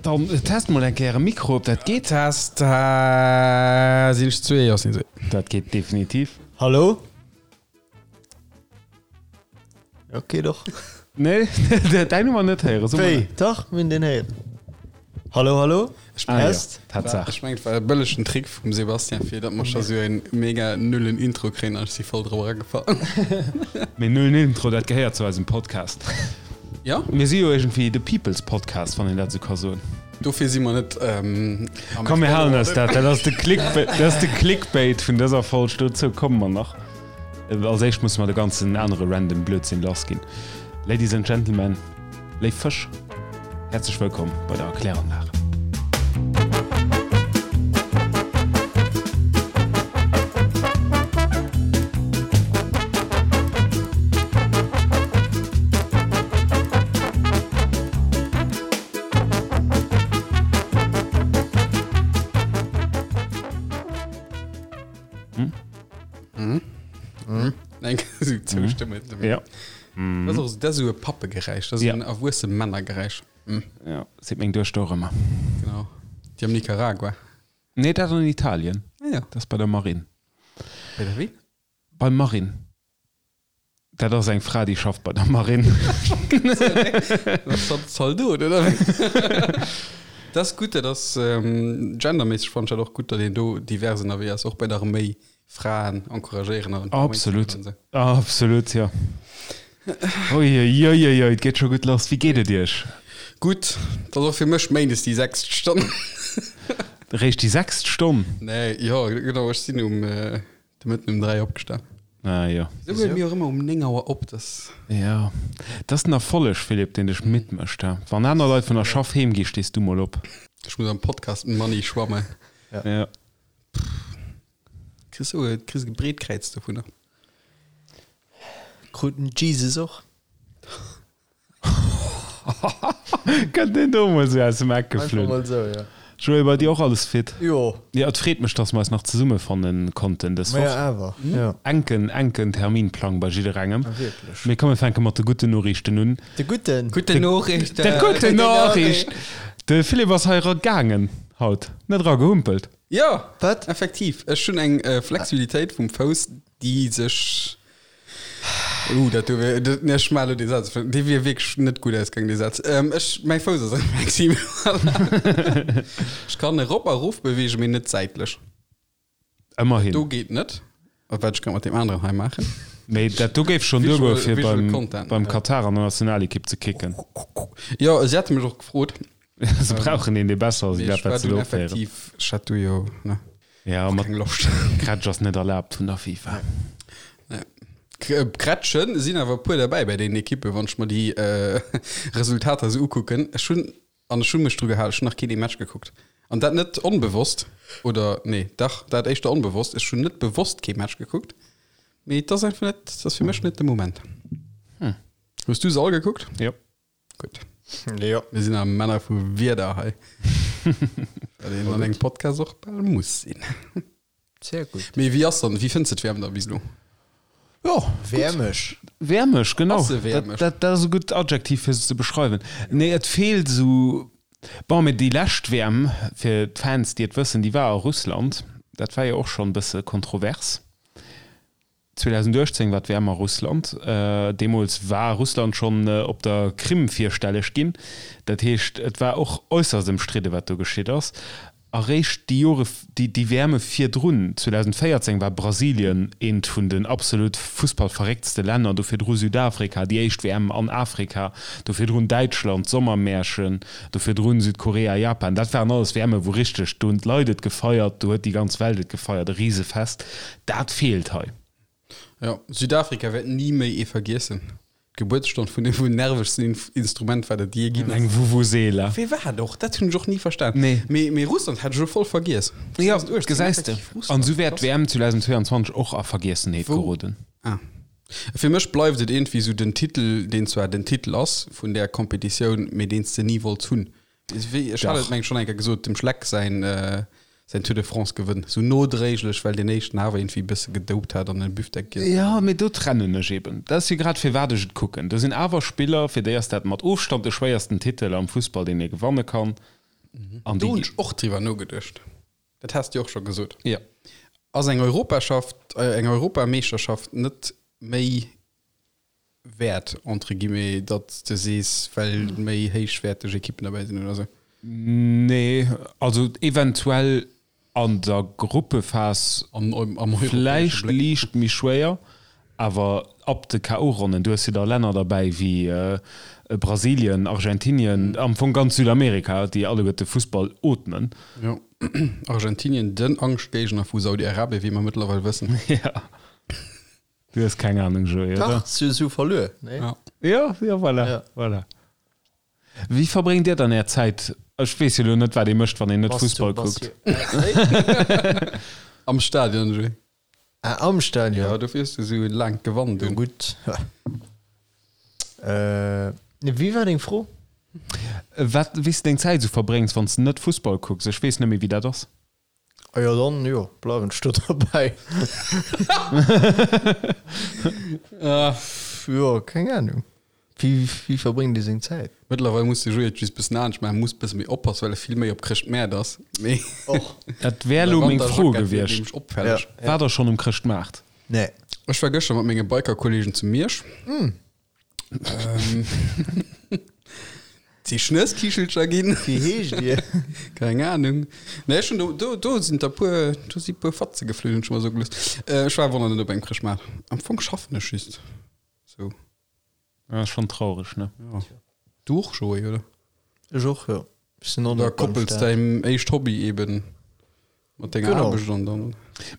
Dann test mol eng Kéier e Mikro, ob dat geet. Test, sinn ech zwee? Jo, sinn zwee. Dat geet definitiv. Hallo? Ok, doch. Nee, däin hu mer net héieren. So Wéi? Dach, mir hunn deen héieren. Hallo, hallo? Ah, ja. Test. Tatsaach. Ech mengen, et war e bëllegen Trick vum Sebastian, fir datt mer scho sou en mega nullen Intro kréien an ech si voll drop eragefall. Mee nullen Intro, dat gehéiert zu eisem Podcast. Ja. Mir si jo iergendwéi de People's Podcast, wann een dat esou ka soen. Dofir si mer net am Komm, mir halen eis dat. Dat ass de Clickbait, dat ass de Clickbait vun dëser Folg. Dozou komme mer nach. Als éischt musse mer de ganzen anere random Blödsinn lass ginn. Ladies and Gentlemen, léif Fësch, häerzlech wëllkomm bei der Erkläranlag. Eng Zoustëmme. Ja. Dat ass och dat ass esou e Pappegeräisch, dat ass Ja. en erwuesse Männergeräisch. Ja, seet meng Duechter och ëmmer. Genau. Déi am Nicaragua. Nee, dat an Italien. Ah ja. Dat ass bei der Marine. Bei der wéi? Beim Marine. Dat ass eng Fra, déi schafft bei der Marine. Dat ass dann Zaldot, oder wéi? Dat ass gutt, dat ass genderméisseg fannen ech dat och gutt, datt een do divers ënnerwee ass, och bei der Arméi. Fraen encouragéieren an Absolut, absolut, jo. Uiuiuiui, et geet scho gutt lass. Wéi geet et Iech? Gutt, et ass och fir mech méindes déi sechst Stonn. Réischt déi sechst Stonn? Nee, jo, genau, ech sinn um de Mëtten um 3 opgestan. Ah jo. Wéisou huele mir och ëmmer um 9 Auer op? Dass. Jo, dat ass den Erfolleg, Philippe, deen dech midd mécht. Wann aner Leit vun der Schaff heem gi, stees du mol op. Ech muss am Podcast Money schwammen. Ja. Kriss du e kriss e Breetkräiz dovunner. Krut den Jesus och? Kënnt deen do mol sou aus dem Eck Einfach geflunn. mol sou, ja. Joé, bei dir och alles fit? Jo. Jo, et freet mech, dass mer eis nach zesummefanne konnten dës Ma Woch. ja, awer, ja. Enken, enken Terminplang bei jidderengem. Ah, wierklech. Mee komm, mir fänke mat de gudden Noriichten un. De gudden. Gudden Noriichten! De gudden Noriicht! De Philippe ass hei era gaangen haut, net era gehumpelt. Jo, Wat? effektiv. Ech hunn eng Flexibilitéit vum Fouss, déi sech. Uh, dat do wär, dat, nee, ech maache lo dee Saz, dee wier wierklech net gutt ausgaangen, dee Saz. Ech, mäi Fouss ass flexibel. Ech kann erop a erof beweegen, mee net säitlech. Ëmmerhin. Do geet net. A wat ech grad mat deem aneren hei maachen. Mee dat do géif schonn duergoe fir Visual beim, Content. beim Katar an der Nationalekipp ze kicken. Jo, si hate mech och gefrot. Se brauchen een, dee besser ass Mee wéi ech dat, war wat se dunn do opféieren. effektiv, ech hat du jo, ne, Ja, och mat keng Loscht. Grätsch ass net erlaabt vun der FIFA. Nee. Grätschen sinn awer e puer derbäi bei deenen Ekippen, wann ech mer déi Resultater esou ukucken. Ech hunn, an ech hu mech dru gehalen, ech hunn nach keen ee Match gekuckt. An dat net onbewosst, oder nee, dach, dat éischter onbewosst. Ech hunn net bewosst kee Match gekuckt, mee et ass einfach net, et ass fir mech net de Moment. Hues du se all gekuckt? Jo. Gutt. Jo. Mir sinn awer Männer vu Wieder hei. Wat een an engem Podcast och bal muss sinn. Sehr gutt. Mee wéi ass dann, wéi fënns de d'WM da bis elo? Jo, Wäermeg. Wäermeg, genau. Ass se wäermeg? Dat, dat ass e gutt Adjektiv, fir se ze beschreiwen. Nee, et feelt esou, bon, mee déi lescht WM, fir d'Fans, déi et wëssen, déi war a Russland. Dat war jo och schonn e bësse kontrovers. 2018 war d'WM a Russland. Deemools war Russland schonn op der Krim virstelleg ginn. Dat heescht, et war och äusserst ëmstridde wat do geschitt ass. Eréischt déi Jore, déi WMe virdrun, 2014 war Brasilien eent vun den absolut fussballverrécktste Länner, do virdru Südafrika, déi éischt WM an Afrika, do virdrun Däitschland, d'Sommermärchen, Do virdrun Südkorea, Japan, dat waren alles WMe wou richteg, do hunn d'Leit et gefeiert, do huet déi ganz Welt et gefeiert, e Risefest. Dat feelt hei. Jo, Südafrika wäert ni méi ee vergiessen. D'Gebuertsstonn vun dem wuel nervegsten Instrument, wat et jee ginn ass. Eng Vuvuzela. Wéi war dat och? Dat hunn ech och ni verstan. Nee. Mee, mee Russland hat ech elo voll vergiess. Jo, 2018, gesäis de. effektiv An Russland, esou wäert krass. d'WM 2022 och a Vergiessenheet Wou? geroden. Ah. Fir mech bleift et iergendwéi esou den Titel, deen zwar den Titel ass vun där Competitioun, mee deen s de ni wollts hunn. Wéi, ech hat et Dach. meng ech schonn eng Kéier gesot, dem Schleck säin, säin Tour de France Gewënn, esou nodréiglech, well deen éischten awer iergendwéi e bësse gedopt hat an e Büftek giess hat. Jo, mee do trennen ech eben. Dat ass jo grad firwat ech et kucken. Do sinn awer Spiller, fir déi ass dat mat Ofstand de schwéiersten Titel am Fussball, deen ee gewanne kann. An Do hunn déi ech och driwwer nogeduecht. Dat has de jo och scho gesot. Ja. Ass eng Europaschaft, eng Europameeschterschaft net méi wäert, entre guillemets, datt s de sees, well méi héichwäerteg Ekippen derbäi sinn oder sou? Nee, also eventuell an der Gruppephas Am europäesche vläicht Bléck. liicht méi schwéier, awer ab de KO-Ronnen, du hues jo da Länner derbäi wéi Brasilien, Argentinien, am Fong ganz Südamerika, déi alleguerte Fussball ootmen. Jo, Argentinien, den Angschtgéigner vu Saudi-Arabien, wéi mer mëttlerweil wëssen. Ja. Du hues keng Ahnung, Joé, oder? Dach, si hu verluer, nee? Ja. Ja, ja, voilà, Ja. voilà. Wéi verbréngt Dir dann Är Zäit? Ech weess jo elo net, wat ee mécht, wann een net Fussball kuckt. Am Stadion, Joé. Ah, am Stadion? Ja, dofir hues du esou e laangt Gewand Jo, un. gutt. Äh, wéi war deng Fro? Wat, wéi s de deng Zäit esou verbréngs, wann s de net Fussball kucks? Ech weess net méi, wéi dat ass. Ah jo, dann jo, bleiwen ech do derbäi. Jo, keng Ahnung. Wéi, wéi verbréngt ee seng Zäit? Mëttlerweil muss de Joé et just bëssen anescht maachen, muss bësse méi oppassen, well e vill méi op Chrëschtmäert ass. Mee Och. Dat wär elo meng Fro Wanterjackett wier gewiescht. nämlech opfälleg. Ja. Waart der schonn um Chrëschtmaart? Nee. Ech war gëschter mat menge Biker-Kollegen zu Miersch. Si Schnësskichelcher ginn. Wéi heescht Dir? Keng Ahnung. Nee, ech hunn do, do, do sinn der puer, do si puer Fatze geflunn, hunn ech mer soe gelooss. Ech war awer nach net op engem Chrëschtmaart. Am Fong schaffen ech just sou. Dat ass schonn traureg, ne? Ja. Du och, Joé, oder? Ech och, jo. Ech sinn och Da net beim koppels Staat. däin éischt Hobby eben mat denger Genau. Aarbecht an dann.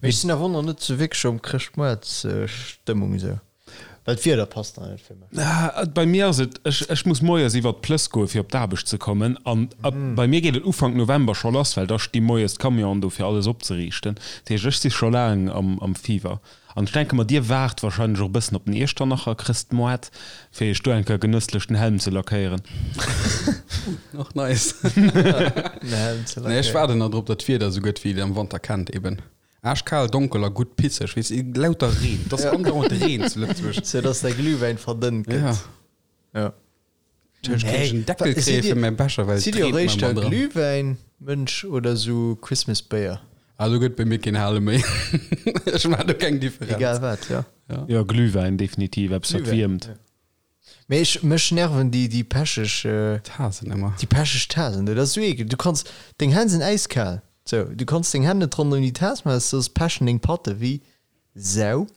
Mee ech sinn awer och nach net sou wierklech am Chrëschtmoartsstëmmung esou. Well d'Wieder passt nach net fir mech. Ah, bei mir ass et, ech, ech muss moies iwwert d'Plëss goe fir op d'Aarbecht ze kommen an ab, bei mir geet et Ufank November scho lass, well da sti moies d'Camionen do fir alles opzeriichten. Dat heescht, ech si scho laang am, am Fever. An ech denke mer, dir waart wahrscheinlech och e bëssen op den Iechternacher Chrëstmoart, fir iech do eng Kéier genësslech den Helm ze lackéieren. Och nice. Den Helm ze Nee, ech lackéieren. waarden nach drop, datt d'Wieder esou gëtt, wéi et am Wanter kennt eben. Aaschkal, donkel a gutt pisseg, weess de, lauter Reen, et ass andauernd Reen zu Lëtzebuerg. Sou dass däi Glühwäin verdënnt Ja. gëtt. Ja. Ech kéint en Deckel Sidd kréie dir- fir mäi Becher, well et Sidd dir reent mer eréischter ëmmer dran. Glühwäin-Mënsch oder sou Christmas-Béier? Ah, do gëtt bei mir keen Hale méi. Ech maachen do keng Differenz. Egal wat, ja. Jo, Glühwäin definitiv, eppes wat Glühwäin, wiermt. ja. Mee ech, mech nerven déi, déi pecheg, Tasen ëmmer. déi pecheg Tasen do. Dat ass sou ekel. Du kanns, deng Hänn sinn äiskal. Sou, du kanns deng Hänn net ronderëm déi Tas maachen, soss pechen deng Patte wéi Sau.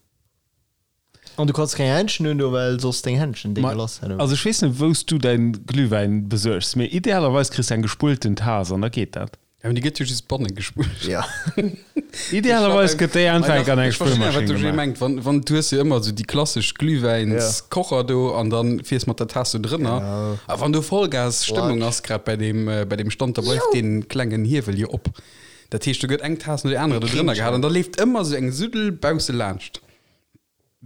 An du kanns keng Händschen un do, well soss deng Händschen déi Ma, gelass hätt. also ech weess net wou s du däin Glühwäin besuergs, mee idealerweis kriss de eng gespullten Tas an da geet dat. Ja, mee déi gëtt jo just banne gespullt. Ja. Idealerweis gëtt déi einfach an eng Ech verstinn awer, wat Spullmaschinn de Jay gemaach. mengt. Wann, wann, du hues jo ëmmer esou déi klassesch Glühwäinskocher do an dann fiers mat der Taass do drënner. Genau. A wann do Vollgas-Stëmmung ass, grad bei deem, bei deem Stand, da bleift dee klengen Hiewel jo op. Dat heescht, do gëtt eng Taass no der anerer do drënner gehat an da leeft ëmmer esou eng Suddel bausse laanscht.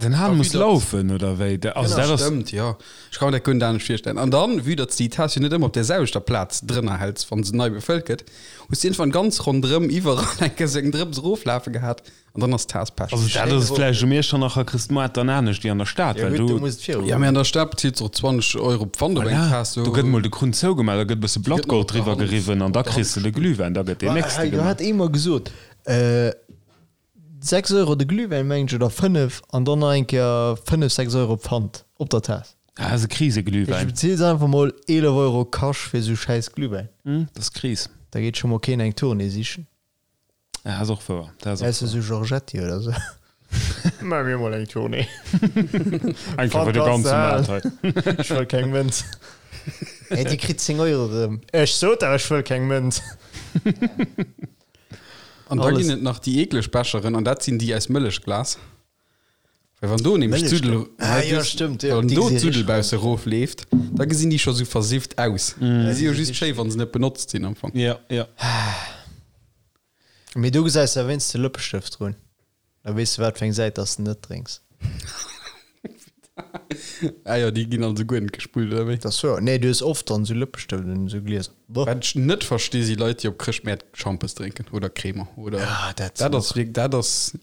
Den Hahn A muss vue datt- laufen, oder wéi? Also dat ass. Stëmmt, jo. Ech ka mer dat guer net anescht virstellen. An dann, vue datt s de déi Taass jo net ëmmer op där selwechter Plaz drënner häls, wann se nei befëllt gëtt, hues de iergendwann ganz ronderëm iwwerall eng Kéier sou eng Drëps eroflafe gehat an dann ass d'Taass pech. Also dat ass vläicht um Iechternacher Chrëstmoart dann anescht wéi an der Stad, Ja well gutt, do do. muss et viru Ja, mee an der Stad bezilt s och 20 Euro Pfand op eng Voilà, Taass. do gëtt mol de Krunn zougemaach, da gëtt e bësse Blattgold driwwer geriwwen an da kriss de de Glühwäin, da gëtt deen nächste Do gemaach. hat ee mer gesot, 6 Euro de Glühwäin mengen ech oder 5 an dann nach eng Kéier 5, 6 Euro Pfand op der Taass. Ah, ass e Ech Kriseglühwäin. beziels einfach mol 11 Euro Cash fir sou schäiss Glühwäin. Hm, dat ass Kris. Da geet scho mol keen eng Tournée sichen. Ah, ass och wouer. Dat ass och Ausser wouer. sou Giorgetti oder sou. Maa mir mol eng Tournée. Eng Kéier fir de Pfand kanns ganze de Maart halen. hei. Ech wëll keng Mënz. Hey, dir kritt 10 Euro erëm. Ech sot der, ech wëll keng Mënz. An da Alles. ginn et nach déi eekleg Becheren, an dat sinn déi aus Mëllechglas. Well wann do nämlech Mëllechglas. d'Suddel, Ah, jo, stimmt, jo, wann déi do gesi d'Suddel richteg bausse erofleeft, da gesinn déi scho sou versifft aus. Déi si jo just schéi, wa se net benotzt sinn am Fong. Ja, ja. Mee do gesäis de wéinst de Lëppestëft drun. Da weess de wat fir eng Säit dass de net drénks. Ah jo, déi ginn also guer net gespullt, oder wéi? Dat ass wouer. Nee, du hues oft dann esou Lëppestëft un esou Glieser. Boah. Wat ech net versti si Leit, déi op Chrëschtmäert Schampes drénken oder Cremer oder. Ah, dat Dat ass wierk, dat ass,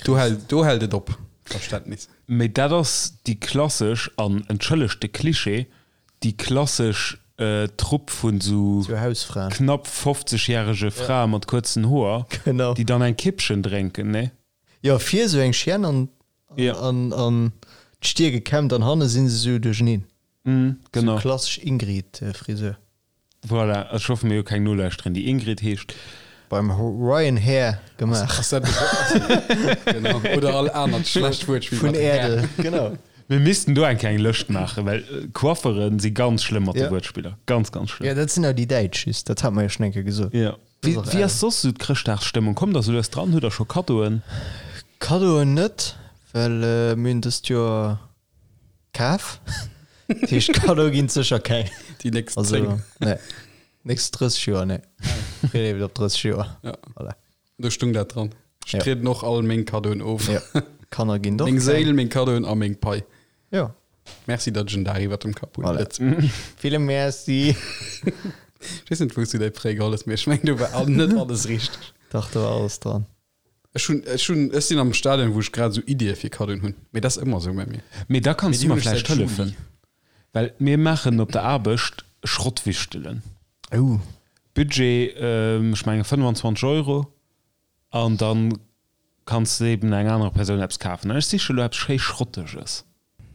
do hält, do hält et op, Verständnis. Mee dat ass déi klassesch, an entschëllegt de Cliché, déi klassesch. Trupp vun sou knapp 50 järege Frae mat kuerzen Hoer, déi dann eng Kippchen drénken, nee? Jo, vir sou eng Chienne an an d'Stier gekämmt an hanne si se sou duercheneen. Genau. Sou klassesch Ingrid-Frisur. Voilà, ech hoffe mir hu keng Nolauschterin déi Ingrid heescht. Beim Ryan Hair gemaach. Ass dat genau. Oder all anert schlecht Wuertspill Vun Äerdel, genau. Mir missten do eng kleng Lëscht maachen, well Coifferen si ganz schlëmm mat de Wuertspiller. Ganz, ganz schlëmm. Jo, dat sinn awer déi Däitsch just, dat hat mer jo schonn eng Kéier gesot. Jo. Wéi ass soss esou d'Chrëschtdagsstëmmung? Kommt der esou lues dran? Hutt der scho Kaddoen? Kaddoen net, well mir hunn dëst Joer Kaf. Dat heescht Kaddo ginn et sécher keng. Déi nächst 10. Nee. Nächst 30 Joer, nee. Freet op 30 Joer. Ja. Voilà. Do stung dat dran. Ech Ja. trieden och all meng Kaddoen of. Ja. Kanner ginn och Meng keng. Séil, meng Kaddoen a meng Pai. Ja. Merci, datt ech en Dag iwwert dem Kapp hunn. Voilà. Lëtzebuerg. Ville Merci. Ech weess net, wou s du däi Prêt geholl hues, mee ech meng, do war all- net alles richteg. Dach, do war alles dran. Ech hunn, ech hunn, ech sinn am Stadion, wou ech grad esou Iddie fir Kaddoen hunn. Mee dat ass ëmmer esou bei mir. Mee da kanns Mee du déi mer hunn ech vläicht säit Juli. hëllefen, well mir maachen op der Aarbecht Schrottwichtelen. Oh. Budget, ech menge 25 Euro, an da kanns de eben enger anerer Persoun eppes kafen. An ech siche lo eppes schéi Schrotteges.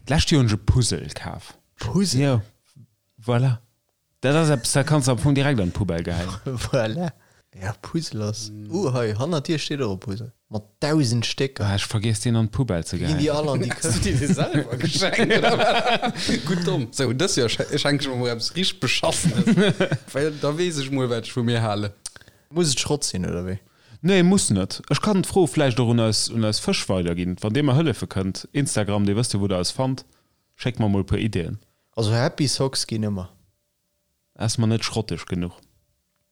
D'lescht Joer hunn ech e Puzzle kaf. Puzzle? Jo, voilà. Dat ass eppes, dat kanns de am Fong direkt an d'Poubelle geheien. Voilà. Ja, Puzzle ass. Uh, hei hannert dir steet och e Puzzle. Mat 1000 Stécker. Ah, ech vergiess deen an d'Poubelle ze Ginn déi geheien. all an déi Hast du Këscht. dir dee selwer geschenkt, oder wat? Gutt domm. Sou, dës Joer schenke ech mer mol eppes richteg Beschassenes. Well da weess ech mol, wat ech vu mir halen. Muss et Schrott sinn, oder wéi? Nee, muss net. Ech kann d'Fro vläicht och un eis, un eis Fësch weiderginn, wann dir mer hëllefe kënnt. Instagram, dir wësst jo, wou der eis fannt. Schéckt mer mol e puer Ideeën. Also Happy Socks ginn ëmmer. Ass mer net schrotteg genuch.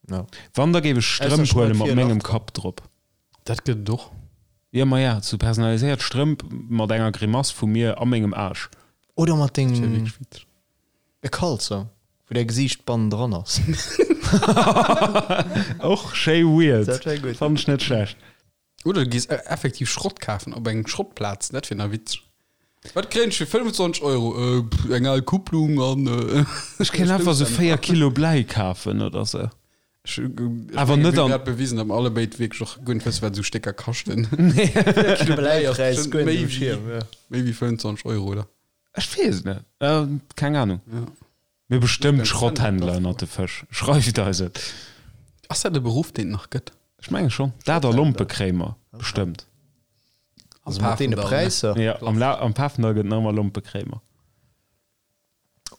No. Wann da géif ech Ausser Strëmp huele Schrott mat fir mengem Lach. Kapp drop. Dat gëtt et och. Jo maja, sou personaliséiert Strëmp mat enger Grimass vu mir a mengem Aarsch. Oder mat Dat wär dengem wierklech witzeg. e Kalzong, wou däi Gesiicht bannendran ass. Och schéi weird. Dat wär gutt. Fannen ech net schlecht. Oder du gees effektiv Schrott kafen op engem Schrottplaz, dat wier nach witzeg. Wat kréien ech fir 25 Euro? Eng al Kupplung an Ech kéint einfach sou 4 Kilo Bläi kafen oder sou. Ech mengen, Awer net mir hunn an. grad bewisen, datt mer allebéid wierklech och guer net wëssen, wat esou Stécker kaschten. Nee. 4 Kilo Bläi ass Bläipräis bestimmt guer net méi um Schierm, wéi ja. méi wéi 25 Euro, oder? Ech weess et net. Keng Ahnung. Ja. Mir bestëmmt Ganz Schrotthändler ënnert de Fësch. Schreift eis et. Ass dat e Beruff, deen et nach gëtt? Ech menge schonn. Dat a Lompekréimer bestëmmt. Am Also mat deene Pafendall, ne? Präisser. Ja, am, La am Pafendall gëtt nach ëmmer Lompekréimer.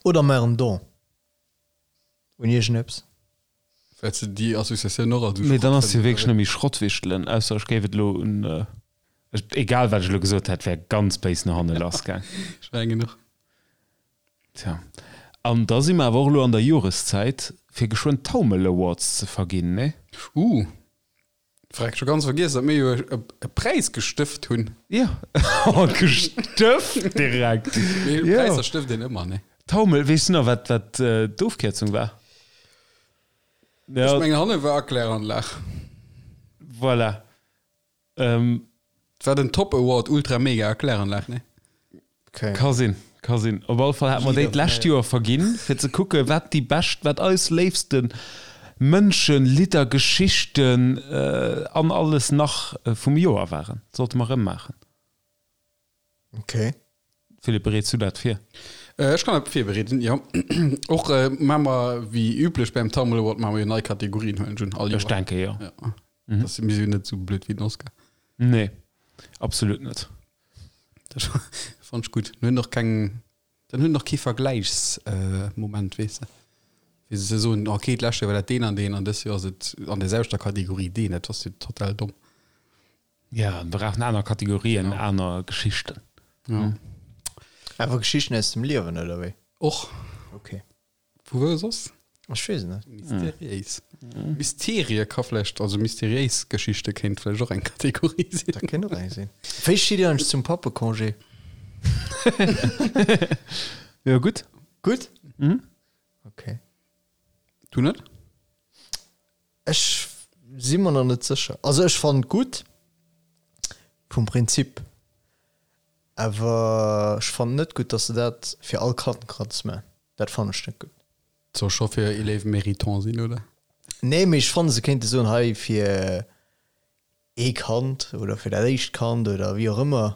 Oder mar en Don un iergendeppes. Well se déi Associatioun och als Mee dann ass jo wierklech net méi Schrottwichtelen, ausser ech géif et elo un, egal wat ech elo gesot hätt, wär ganz béis no hanne lassgaang. Ech mengen och. Tja, an da si mer awer och elo an der Joreszäit, fir geschwënn d'Taumel Awards ze verginn, nee? Uh, freck, scho ganz vergiess, datt mir jo e Präis gestëft hunn. Jo, oh, gestëft direkt! Mee Jo. Präisser stëft een ëmmer, nee? Taumel, weess du nach, wat, wat d'Ofkierzung war? Ech Ja, mengen, hanne war Erkläranlag. voilà. Ähm, Et war den Top Award Ultra Mega Erkläranlag, nee? Okay. Ka sinn, ka sinn. Op alle Fall hate mer déi d'lescht Joer verginn, fir ze kucken, wat déi bescht, wat eis léifste Mënschen, Lidder, Geschichten an alles nach vum Joer waren. Sollte mer erëm maachen. Okay. Philippe, bereets du dat vir? Ech kann dat virbereeden, jo. Och maache mer, wéi üblech beim Tammel Award, maache mer jo nei Kategorien, huelen ech un, all Joer. Ech denke jo. Ja. Mhm. Das, mir sinn net sou blöd wéi den Oscar. Nee, absolut net. Dat fand ich gut. Dann hunn och keng, dann hunn och kee Vergläichsmoment, äh, weess de. Wéi se soen, okay, d'lescht Joer war dat deen an deen an dës Joer ass et an der selwechter Kategorie deen. Dat ass jo total domm. Ja, wir brauchen aner Kategorien, ja. aner Geschichten. Ja. Einfach Geschichten aus dem Liewen, oder wéi? Och. Okay. Vu wou soss? Ech weess et net. Mysteriéis. Mysterie ka vläicht, also mysteriéis Geschichte kéint vläicht och eng Kategorie sinn. Dat kéint och eng sinn. Wéi steet Dir eigentlech zum Pappecongé? Jo, gutt. Gutt? Mhm. Okay. Du net? Ech si mer nach net sécher. Also ech fannen et gutt vum Prinzip, awer ech fannen net gutt, datt se dat fir all Kand kanns maachen. Dat fannen ech net gutt. Soll scho fir Élèves méritants sinn, oder? Nee, mee ech fannen, se kéinte soen, hei fir ee Kand oder fir dat éischt Kand oder wéi och ëmmer,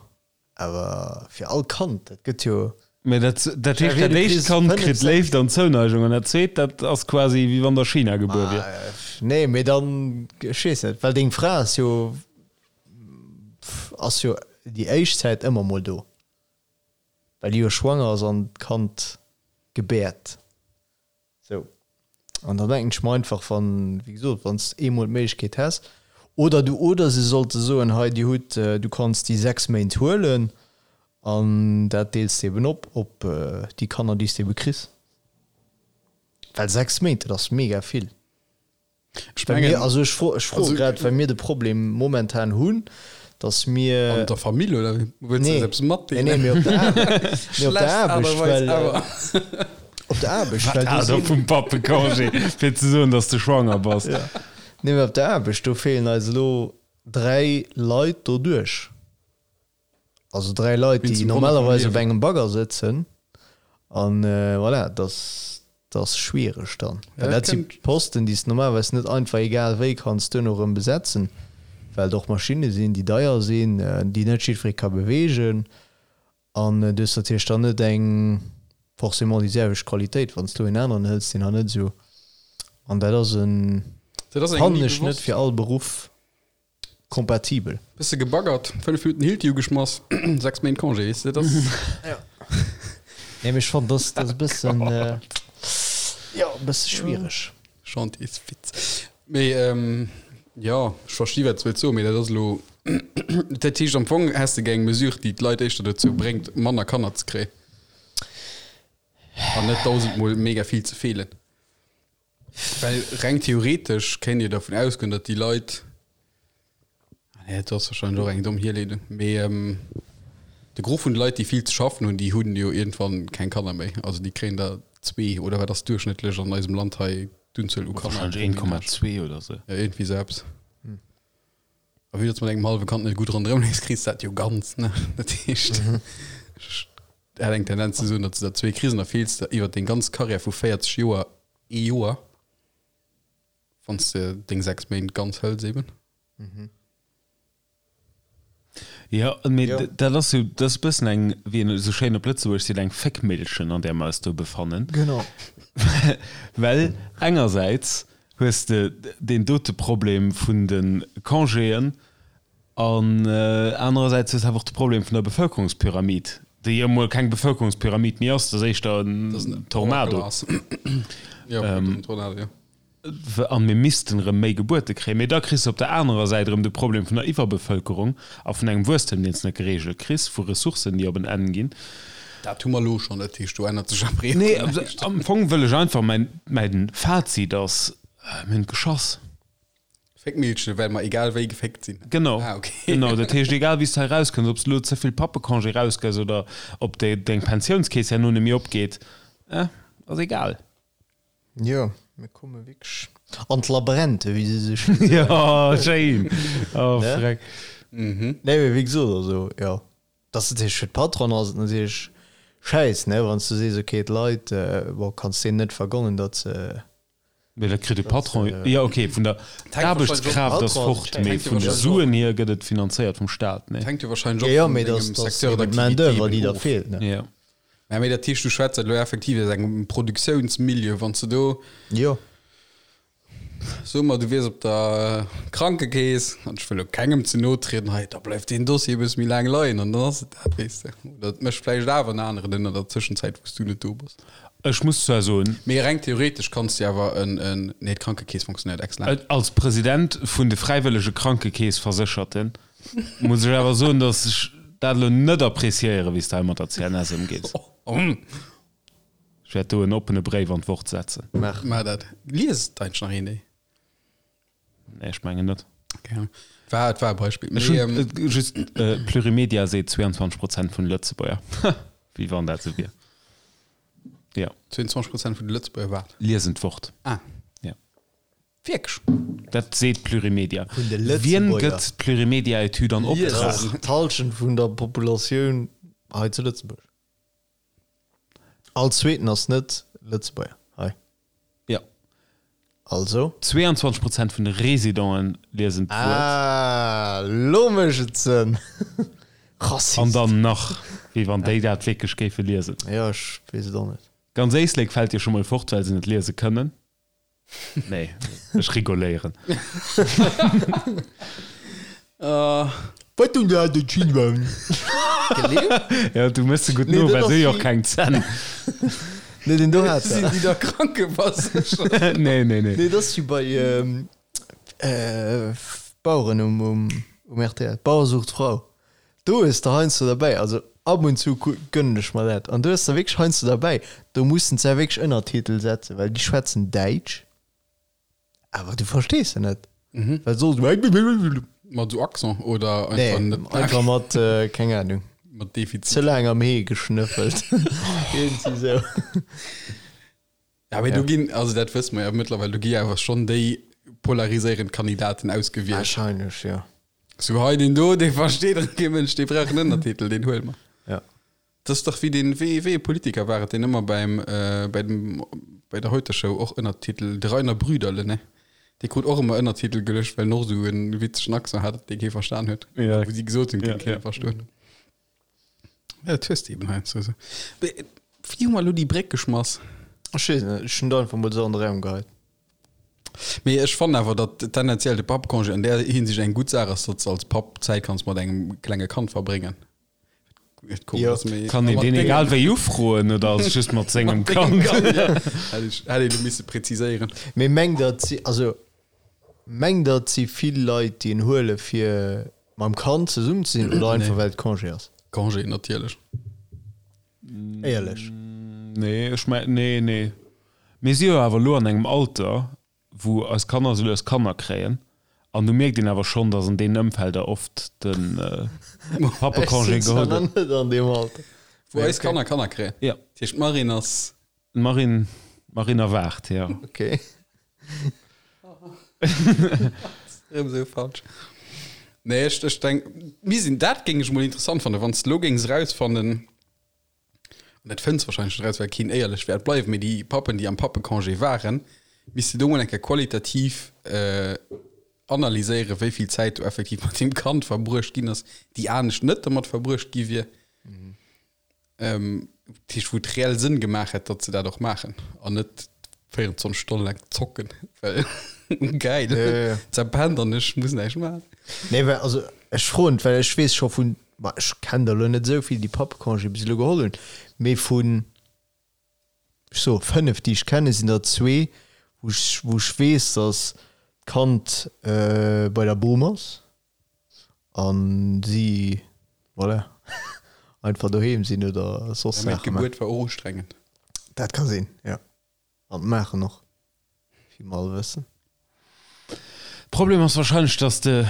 awer fir all Kand, dat gëtt jo. Mee dat, dat heescht, dat éischt Kand kritt Léift an Zouneigung an dat zweet, dat ass quasi wéi wann der China gebuer wier. Nee, mee dann, ech weess net, well deng Fra ass jo, ass jo déi éischt Zäit ëmmer mol do. Well déi jo schwanger ass an d'Kand gebäert. Sou. An dann denken ech mer einfach, wann, wéi gesot, wann s de eemol d'Méiglechkeet häss, oder du, oder se sollte soen, hei dir hutt, du kanns déi 6 Méint huelen an dat deels de eben op op déi Kanner, déi s de ebe kriss. Well 6 Méint, dat ass mega vill. Ech Well mengen, mir, also ech fro, ech froe also, grad, well mir de Problem momentan hunn, dass mir. An der Famill oder wéi? Wëlls du Nee, eis eppes nee, matdeelen? nee, mee op der Aarbecht, mee op der Schlecht Aart a Aarbecht, Weis well, ever. op der Aarbecht, Wat well do Ader sinn. vum Pappecongé, fir ze soen, dass de schwanger bass. Ja. Nee, mee op der Aarbecht, do feelen eis elo 3 Leit doduerch. Also 3 Leit, Wéinst déi dem Wonner vum normalerweis op Liewen. engem Bagger sëtzen. An voilà, dat ass schwiereg dann. Ja, Well dat dat si kënnt. Posten, déi s de normalerweis net einfach egal wéi kanns duerno erëm besetzen, well et och Maschinne sinn, déi deier sinn, déi net jiddweree ka beweegen. An du hues natierlech dann net eng forcément déi selwecht Qualitéit, wann s du en aneren hëls, deen hat net esou. An dat ass en, Dat ass engem fannen ni ech, net bewosst. fir all Beruff Kompatibel. Bësse gebaggert, 5 Minuten Hilti ugeschmass, 6 Méint Congé, weess de, dat ass. Nee, mee ech fannen, dass dat e bëssen, jo, e bësse schwiereg. Chantiers-Witz. Mee, jo, ech versti wat s de wëlls soen, mee dat ass elo, dat heescht am Fong häss de gär eng Mesure, déi d'Leit éischter dozou bréngt, manner Kanner ze kréien an net dausendmol mega vill ze feelen. Well reng theoretesch kéint ee dervun ausgoen, datt déi Leit, ah nee, dat ass wahrscheinlech och eng domm Hierleedung, mee de Gros vun de Leit, déi vill ze schaffen hunn, déi hunn jo iergendwann keng Kanner méi. Also déi kréien der zwee oder wat ass duerchschnëttlech an eisem Land hei d'Unzuel u Kanner? Wahrscheinlech 1,2 oder sou. Ja, iergendwéi sou eppes. A vue datt s mat engem hallwe Kand net gutt ronderëm leefs, kriss de dat jo ganz, ne? Dat heescht, ech hätt eng Tendenz ze soen, datt s de der zwee kriss an da feels de iwwer deng ganz Karriär vu 40 Joer ee Joer, wann s de deng 6 Méint ganz hëls eben. Jo, mee Jo. dat ass jo, dat ass e bëssen eng, wéi een esou schéin op Lëtzebuergesch seet, eng Féckmillchen, an där mer eis do befannen. Genau. Well engersäits hues de deen dote Problem vun de Congéen an anerersäits hues de awer och de Problem vun der Bevëlkerungspyramid, déi jo emol keng Bevëlkerungspyramid méi ass, dat ass éischter en Tornado. An mir missten erëm méi Gebuerte kréien. Mee da kriss de op der anerer Säit erëm de Problem vun der Iwwerbevëlkerung a vun engem Wuesstem, deen s de net gereegelt kriss, vu Ressourcen, déi op en Enn ginn. Dat hu mer elo schonn, dat heescht, do ännert sech am Reegel Nee, näischt. am Fong wëll ech einfach, mäin, mäin Fazit ass, mir hunn geschoss. Féckmillchen, well mer egal wéi geféckt sinn. Genau, Ah, okay. genau. Dat heescht, egal wéi s de hei rauskënns, ob s de elo ze vill Pappecongé rausgëss oder ob de, deng Pensiounskeess herno net méi opgeet, eh, ass egal. Jo, mir komme wierklech an d'Labrente, wéi se sou schéin soen. Jo, schéin. Oh, Ne? freck. Nee, mee wéi gesot, also, jo. Dat ass natierlech fir d'Patronen ass et natierlech schäiss, ne, wann s du sees, okay, d'Leit, bon, kanns deenen net vergonnen, datt se. Mee dat kritt de Patron, jo okay, vun der d'Aarbechtskraaft ass fort, mee jo vun de wahrscheinlech Suen hier gëtt et finanzéiert vum Staat, nee? Et hänkt jo wahrscheinlech Jo, jo, och vun mee dengem dass, dass Secteur eben d'Main d'activité d'oeuvre, eben déi da of. feelt, ne. Jo. Mä mee dat heescht, du schwätz dat elo effektiv aus engem Produktiounsmilieu, wann s de do. Jo. So mer, du wiers op der Krankekeess, an ech wëll elo kengem ze no trieden hei, da bleift deen Dossier e bësse méi laang leien an dann ass et dat, weess de. Oder et mécht vläicht awer en aneren ënner der Tëschenzäit, wou s du net do bass. Ech muss zwar soen. Mee reng theoretesch kanns de awer en, en, nee, d'Krankekeess fonctionnéiert excellent. Als President vun de fräiwëllege Krankekeessversécherten muss ech awer soen, datt ech dat elo net appréciéieren, wéi s de hei mat der CNS ëmgees. Ech wäert do en oppene Bréif an d'Wort setzen. Maach. Maach dat. Liest eigentlech nach een déi? Nee, ech mengen net. Okay. War, et war e Beispill. Ech Mee, hunn ähm, just, Plurimedia seet 22 Prozent vun de Lëtzebuerger. Wéi wann dat esou wier. Jo. 22 Prozent vun de Lëtzebuerger wat? Liesen d'Wort. Ah. Ja. Wierklech? Dat seet Plurimedia. Vun de Wien Lëtzebuerger. gëtt d'Plurimedia-Etüd an Dat Optrag? ass d'Hallschent vun der Populatioun hei zu Lëtzebuerg. All zweeten ass net Lëtzebuerger hei. Also? 22 Prozent vun de Residenten liesen d'Wuert. Ah, lo mécht et Sënn. Rassist. An dann nach, wéi wann déi dat wierklech géife liesen. Jo, ech weess et och net. Ganz Éislek fält jo scho mol fort, well se net liese kënnen. Nee, ech rigoléieren. Wat hunn der de Chilwang? Ja, du mëss se gutt no, well se hu jo och keng Zänn. Nee, den do hat Sinn déi da Krankeverséchert? Nee, nee, nee. Nee, dat ass wéi bei Baueren um rtl, Bauer sucht Frau. Do hues de heiansdo derbäi, also ab und zu gönnen ech mer dat, an do hues de wierklech heiansdo derbäi, do mussen se wierklech Ënnertitel setzen, well déi schwätzen Däitsch, awer du verstees se net, well soss. Mat esou Accent oder einfach Nee, net? einfach mat, keng Ahnung, Mat Defizit. ze laang am Hee geschnëffelt, iergendwéi sou. Ja, mee do ginn, also dat wësse mer jo mëttlerweil, do gi awer schonn déi polariséierend Kandidaten ausgewielt. Wahrscheinlech, jo. Sou hei deen do, dee versteet erëm kee Mënsch, dee brauch en Ënnertitel, deen huele mer. Ja. Dat ass dach wéi deen, wéi, wéi ee Politiker war et, deen ëmmer beim, bei dem, bei der Heute-Show och Ënnertitel, de Rainer Brüderle, ne? Dee krut och ëmmer Ënnertitel geluecht, well en och esou e witzegen Accent hat, dee kee verstan huet. Ja. Wou si gesot hunn, Ja, kéint kee ja. verstoen. Ja, dat hues de eben heiansdo esou. Mee wéi hu mer elo déi Bréck geschmass? Ech weess net, ech hunn et einfach mol esou an de Raum geheit. Mee ech fannen awer, datt tendenziell de Pappcongé an där Hinsicht eng gutt Saach ass, datt s als Papp Zäit kanns mat engem klenge Kand verbréngen. Et komm, Jo. ass méi Kann een mat deen dengem egal wéi ufroen oder ass et just mat sengem mat dengem Kand? Kand, ja. Hätt ech, hätt een elo misse präziséieren. Mee mengt der, et si, also mengt der, et si vill Leit, déi en huele fir mam Kand zesummen ze sinn oder einfach Nee. well et Congé ass? Congé natierlech. Éierlech. Nee, ech meng, nee, nee. Mir si jo awer elo an engem Alter, wou eis Kanner esou lues Kanner kréien, an do mierkt een awer schonn, datt an deenen Ëmfelder oft de Pappecongé Ech sinn geholl zwar nach gëtt. net an deem Alter. Wou eis Kanner Kanner kréien. Ja. Dat heescht, d'Marine ass. D'Marine, d'Marine erwaart, jo. Okay. Erëm esou falsch. Nee, ech, ech denk, mir sinn, dat géing ech mol interessant fannen, wann s de lo géings erausfannen, an dat fënns wahrscheinlech net eraus, well keen éierlech wäert bleiwen, mee déi Pappen, déi am Pappecongé waren, misst de do mol eng Kéier qualitativ äh, analyséieren, wéi vill Zäit do effektiv mat deem Kand verbruecht ginn ass, déi anescht net domat verbruecht gi wier. Ähm, dat heescht, wou et reell Sënn gemaach hätt, datt se dat och maachen an net 24 Stonne laang zocken, well geil, Ja, ja, ja. zerpennt an ech muss näischt maachen. Nee, well, also ech froen, well ech weess scho vun, ma ech kennen der elo net esou vill, déi Pappecongé bis elo geholl hunn, mee vun, ech soe 5, déi ech kennen, sinn der zwee, wou ech, wou ech weess, datt d'Kand bei der Bom ass. An si, voilà, einfach doheem sinn oder soss Ja, mee Saache maachen. d'Gebuert war och ustrengend. Dat ka sinn, jo. An d'Maachen och, wéi mer all wëssen. Problem ass wahrscheinlech, dass de,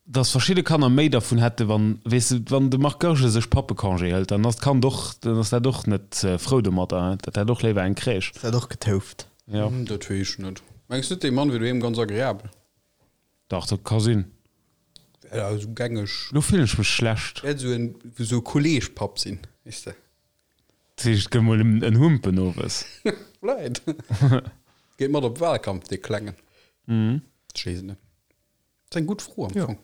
dass verschidde Kanner méi dervun hätte wann, weess de, wann de Marc Goergen sech Pappecongé hëlt, dann ass d'Kand och, dann ass dat och net frou domatter, dat hätt och léiwer eng Crèche. Ass dat och getouft? Jo. Dat weess ech net. Mengs net, dee Mann wier doheem ganz agreabel? Dach, dat ka sinn. Ja, esou gängeg. Lo fillen ech mech schlecht. Wäert esou en, esou e Kolleegpapp sinn, weess de. Dat heescht, et gëtt mol en Humpen owes. Vläit. Geet mat op Wahlkampf, dee Klengen. Ech weess et net. Dat ass eng gutt Fro am Fong.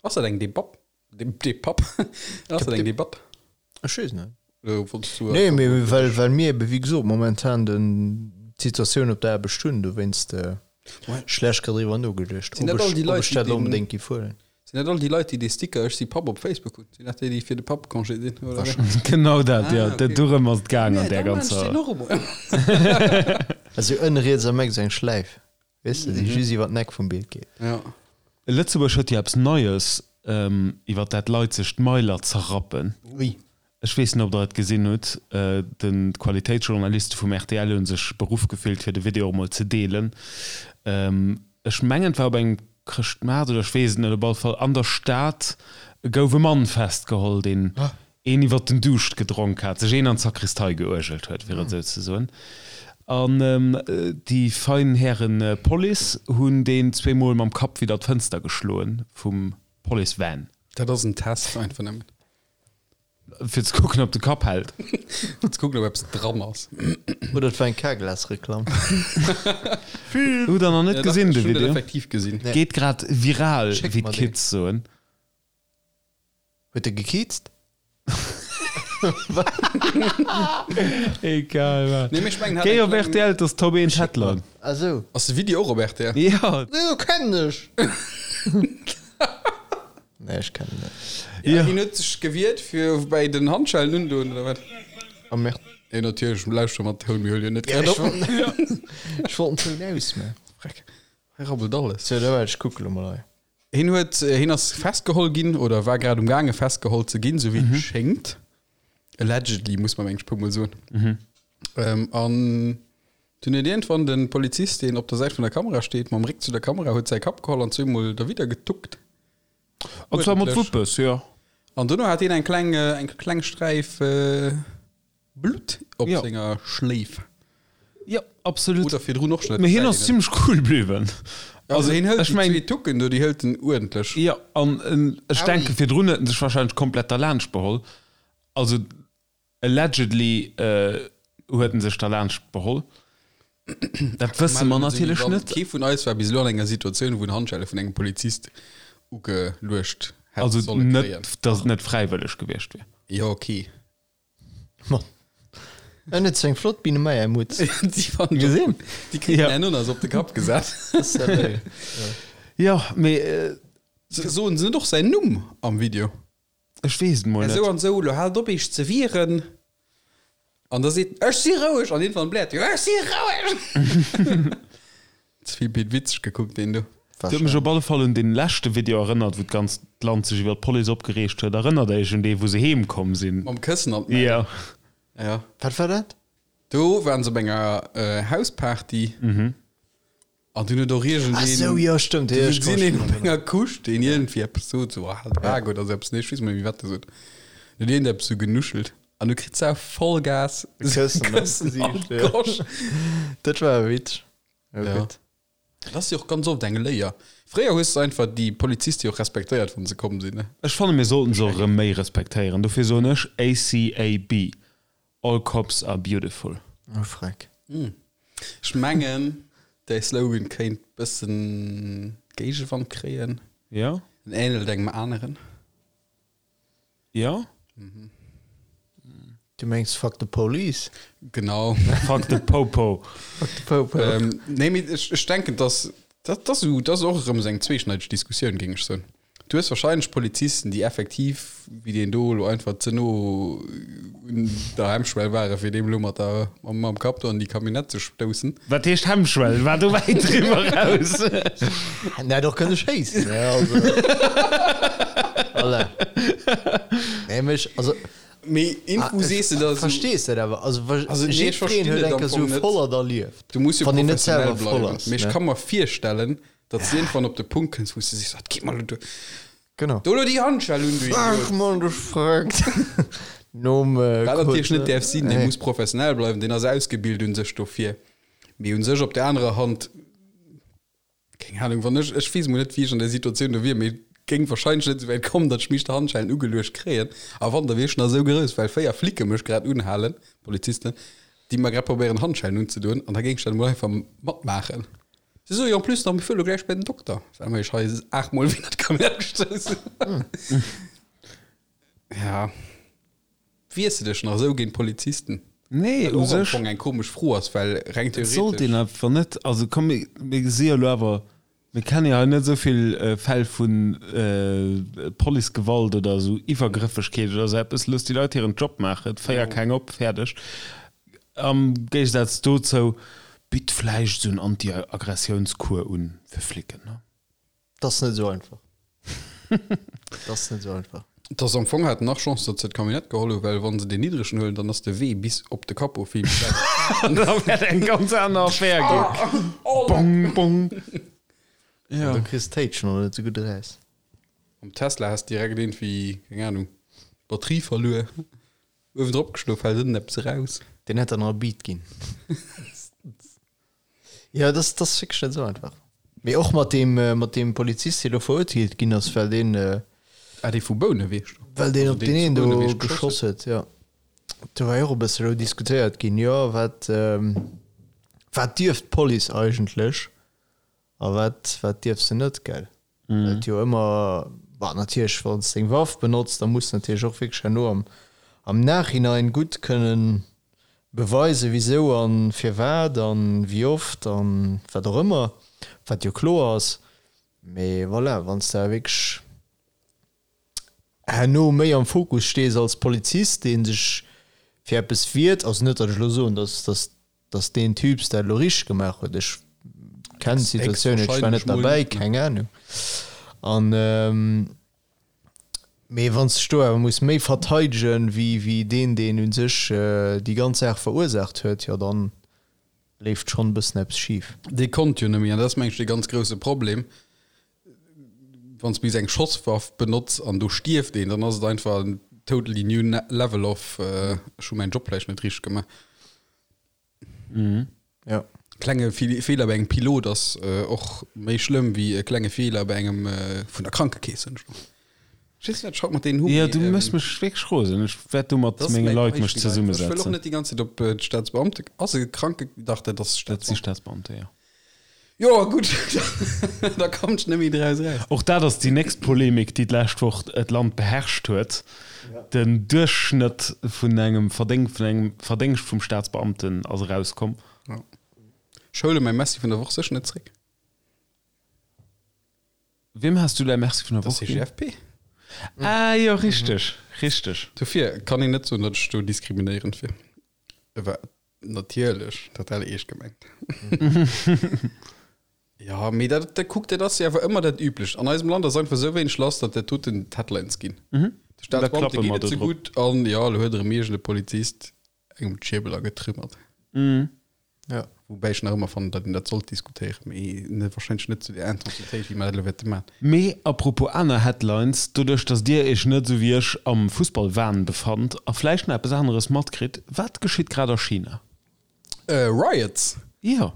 Ass dat eng Debatt? Dee Papp? Ass dat eng Debatt? Ech weess net. Oder wollts du Nee, mee well, well mir ebe wéi gesot momentan den d'Situatioun op der Aarbecht hunn, dowéinst schlecht grad driwwer nogeduecht, Sinn ob dat all ech, déi ob Leit, ech déi dat elo den, onbedéngt géif huelen. sinn dat all déi Leit, déi dee Sticker Ech si Papp op Facebook hunn? Sinn dat déi, déi fir de Pappecongé sinn, oder wéi? Genau dat, jo. Ah, okay. Dorëm ass et gaang an Nee, där da maan ech ganzer. deen och emol. Also ënne riets am Eck esou eng Schläif. Weess de, déi just iwwer d'Neck vum Bild geet. Ja. Lëtzebuerg huet jo eppes Neies, iwwer dat d'Leit sech d'Mailer zerrappen. Ui. Ech weess net, ob Der et gesinn hutt. Den d'Qualitéitsjournaliste vum rtl hu sech beruff gefillt, fir de Video och mol ze deelen. Ech mengen, et war op engem Chrëschtmaart oder ech weess et net. Op alle Fall an der Stad gouf e Mann festgeholl, deen een iwwer den Duuscht gedronk hat, sech een an d'Sakristei geuergelt huet, fir et esou ze soen. An déi fein Häre Police hunn deen zweemol mam Kapp widder d'Fënster geschloen vum Police-Van. Dat ass en Test einfach nëmmen. Fir ze kucken, ob de Kapp hält. Fir ze kucken, ob eppes dran ass. Oder et war eng Carglass-Reklamm. Hutt der nach net gesinn, de Ech hunn dat Video? effektiv gesinn. Nee. Geet grad viral, Schéck wéi mer deen. d'Kids soen. Huet e gekiizt? Egal wat. Nee, mee ech mengen, hat Géi eng op kleng- rtl, dat ass Top 1 Headline. Ah sou. Ass de Video och op rtl? Ja. Nee, kennen ech. Nee, ech kennen net. Ja, Ja. hien huet sech gewiert fir bäi den Handschellen undoen oder wat? Oh merde. Nee, natierlech, lauschter mat Toun, mir huele jo net Ja, grad ech op. wollt, ech wollt den Toun ausmachen. Freck, hei rabbelt alles. So, da warte, ech kucke lo mol hei. Hien huet, hien ass festgeholl ginn oder war grad um gaange festgeholl ze ginn, sou wéi et schéngt. Allegedly, muss man mengen ech puer mol soen. Ähm, an dunn huet iergendwann de Polizist, deen op der Säit vun der Kamera steet, mam Réck zu der Kamera, huet säi Kapp geholl an zweemol derwidder getuckt. An zwar mat Uerdentlech. Wuppes, jo. An dono hat hien eng kleng, eng kleng Sträif Blutt op Ja. senger Schléif. Jo, absolut. Oder virdrun och schon. Mee hien ass zimmlech cool bliwwen. Also hien hëlt ech déi meng- zwee Tucken do, déi hëlt en uerdentlech. Jo, an ech denke virdrun huet en sech wahrscheinlech komplett derlaanscht beholl. Also allegedly huet en sech derlaanscht beholl. Dat wësse mer natierlech net. Kee vun eis war bis elo an enger Situatioun, wou en Handschelle vun engem Polizist ugeluecht hätt Also solle kréien. net, datt et net fräiwëlleg gewiescht wier. Jo, okay. Mann. En huet sou eng flott Biene Meier Mutz. Déi fand Gesinn? Déi kritt Ja. en Ananas op de Kapp gesat. Salut. Jo, mee äh, Soen se net och säin Numm am Video? ech weess et mol Ja, net. sou an sou, lo haalt op iech ze wieren. An da seet en, ech si roueg! An iergendwann bläert en, ech si roueg! Ze vill Pit Witzeg gekuckt, deen do. Dat huet mech op alle Fall un dee leschte Video erënnert, wou d'ganzt Land sech iwwer d'Police opgereegt huet. Erënnert Iech un dee, wou se heem komm sinn? Mam Këssen an d'Mäin. Ja. Ja. Wat war dat? Do waren se op enger Hausparty. An dunn huet och iergendeen. Ach sou, jo, stëmmt. Du Jo, ech gesinn een kann op mech enger Couche, deen iergendwéi eppes sot, sou, ah, halt d'Bak oder sou eppes. Nee, ech weess net méi, wat e sot. Dann huet iergend eppes sou genuschelt. An du kritt se auch Vollgas. Këssen an Këssen an d'Gesiicht, ja. d'Gosch. Dat war e Witz. Ja, Ja. gutt. Dat ass jo och ganz oft eng Léier. Fréier hues de einfach déi Poliziste jo och respektéiert, wann se komm sinn, ne? Ech fanne mir sollten se och erëm méi respektéieren. Dofir soen ech ACAB, All Cops Are Beautiful. Oh, Freck. Ech mengen, däi Slogan kéint bëssen Géigewand kréien. Ja? En ähnelt engem aneren. Ja? Du mengs Fuck the Police? Genau. Fuck the Popo. Fuck the Popo. ähm, nee, mee ech, ech denken, dass dat, dat, dat ass och erëm esou eng zweeschneideg Diskussioun, géing ech soen. Du hues wahrscheinlech Polizisten, déi effektiv, wéi deen do elo einfach ze no un der Hemmschwell waren, fir deem elo mat der, mam, mam Kapp do an déi Camionnette ze stoussen. Wat heescht Hemmschwell? War do wäit driwwer raus? En hätt och kënne schéissen, ne? Also. Voilà. Nee, mee ech, also. Mee info sees de da esou. Verstees dat awer? Also, Also, nee, ech verstinn jiddwereen huet et eng am Kéier Fong sou net. Vollert erlieft. Du muss jo Wann een net professionell selwer voll bleiwen. ass, Mee ech ne? ka mer virstellen, datt s de iergendwann op de Punkt kënns, wou s de sees, Wat geet mer elo duer? Genau. Do elo déi Handschell un, du Ach Idiot! Mann, du Verrückt. Nom äh, Wat natierlech net kurz, däerf sinn, dee nee. muss professionell bleiwen, deen ass ausgebilt un sech dofir. Mee un sech op der anerer Hand, keng Ahnung, wann ech, ech weess mol net, wéi ech an där Situatioun do wier, mee et géing wahrscheinlech net esou wäit kommen, datt ech mech d'Handschellen ugeluecht kréien. A wann, da wier ech nach esou grouss, well 4 Flicke mech grad unhalen, Polizisten, déi mer grad probéieren Handschellen unzedoen, an da géing ech dat emol einfach matmaachen. Si soe jo en plus nach, mir fuere lo gläich bei den Dokter, well mer iech hei aachtmol wéi dat Camionnette gestouss hunn. Ja. Wiers de dech nach esou géint Polizisten? Nee, Wat u och am sech. Fong eng komesch Fro ass, well reng Et sollt een theoretesch. einfach net, also komm, mir, mir si jo elo awer, mir kenne jo hei net esou vill Fäll vu Policegewalt oder esou Iwwergrëffegkeet oder esou eppes. Looss déi Leit hiren Job maachen, féier keng op, fäerdeg. Am Géigesaz dozou, bitt vläicht esou en Anti-Aggressiounscours un fir Flicken, ne? Dat ass net esou einfach. Dat ass net esou einfach. Et ass am Fong haten nach Chance, datt se d'Camionnette geholl hu, well wann se deen niddregen huelen, dann ass de Wee bis op de Capot vill méi wäit. Da wäert eng ganz aner Affär ginn. Bong, bong. Ja. Du kriss d'Téitschen och net esou gutt eraus. Am Tesla has direkt iergendwéi, keng Ahnung, d'Batterie verluer, uewen drop geschlof, fält ënnen eppes eraus. Deen hätt der nach e Beat ginn. Jo, dat ass, dat ass wierklech net esou einfach. Mee och mat deem, mat deem Polizist, dee lo verurteelt ginn ass, well deen. Ah, dee vu Bouneweg do. Well deen op deen een do geschoss huet, jo. Do war jo och e bësse elo diskutéiert ginn, jo, wat, wat dierf d'Police eigentlech a wat, wat dierf se net, gell? Well et jo ëmmer, bon, natierlech, wann s de eng Waff benotz, da muss de natierlech och wierklech herno am, am Nachhinein gutt kënnen beweisen, wisou a firwat a wéi oft a wat och ëmmer, wat jo kloer ass. Mee voilà, wann s de awer wierklech herno méi am Fokus stees als Polizist, dee sech fir eppes wiert, also net, datt ech elo soen, datt, datt, datt deen Typs dat elo richteg gemaach huet, ech kennen d'Situatioun net, ech war net derbäi, keng Ahnung, an mee wann s de dech do awer muss méi verteidegen, wéi, wéi deen, deen u sech déi ganz Saach verursaacht huet, jo dann leeft schonn e bëssen eppes schif. Dee konnt jo net méi, an dat ass mengen ech dee ganz grousse Problem, wann s du bis eng Schosswaff benotz an do stierft een, dann ass et einfach en totally new level of ech hu mäin Job vläicht net richteg gemaach. Ja. Klenge Feeler bei engem Pilot ass och méi schlëmm wéi e klenge Feeler bei engem vun der Krankekeess, hunn ech Ech weess net, wat ech haut mat deenen hu. Jo, du méchs mech wierklech rosen. Ech wäert do mat menge Leit mech zesummesetzen. Ech wëll och net déi ganz Zäit op d'Staatsbeamte. Ass e Kranke. Dach, dat ass Staatsbeamte. Dat si Staatsbeamte, jo. Jo, gutt, da kommt ech net méi draus eraus. Och dat ass déi nächst Polemik, déi d'lescht Woch d'Land beherrscht huet, Den Duerchschnëtt vun engem Verdéng, vun engem Verdéngscht vum Staatsbeamten ass erauskomm. Jo. Ech huele mäi Merci vun der Woch sécher net zréck. Wiem has du däi Merci vun der Woch ginn? Der CGFP. Ah jo, richteg, richteg. Dofir kann een net soen, datt ech do diskriminéierend wier. War natierlech total eescht gemengt. Jo, mee dat, dat kuckt, dat ass jo awer ëmmer dat Üblecht. An eisem Land ass einfach esou wéineg lass, datt dat doten d'Headlines ginn. De Staatsbeamte geet et ze gutt an jo, elo huet erëm iergend e Polizist engem d'Schierbel agetrümmert. Ja. Woubäi ech nach ëmmer fannen, datt een dat sollt diskutéieren, mee net, wahrscheinlech net zu där Intensitéit, wéi mer dat elo wäerte maachen. Mee à propos aner Headlines, doduerch datt Dir Iech net esou wéi ech am Fussballwahn befannt a vläicht nach eppes aneres matkritt, wat geschitt grad a China? Riots! Jo,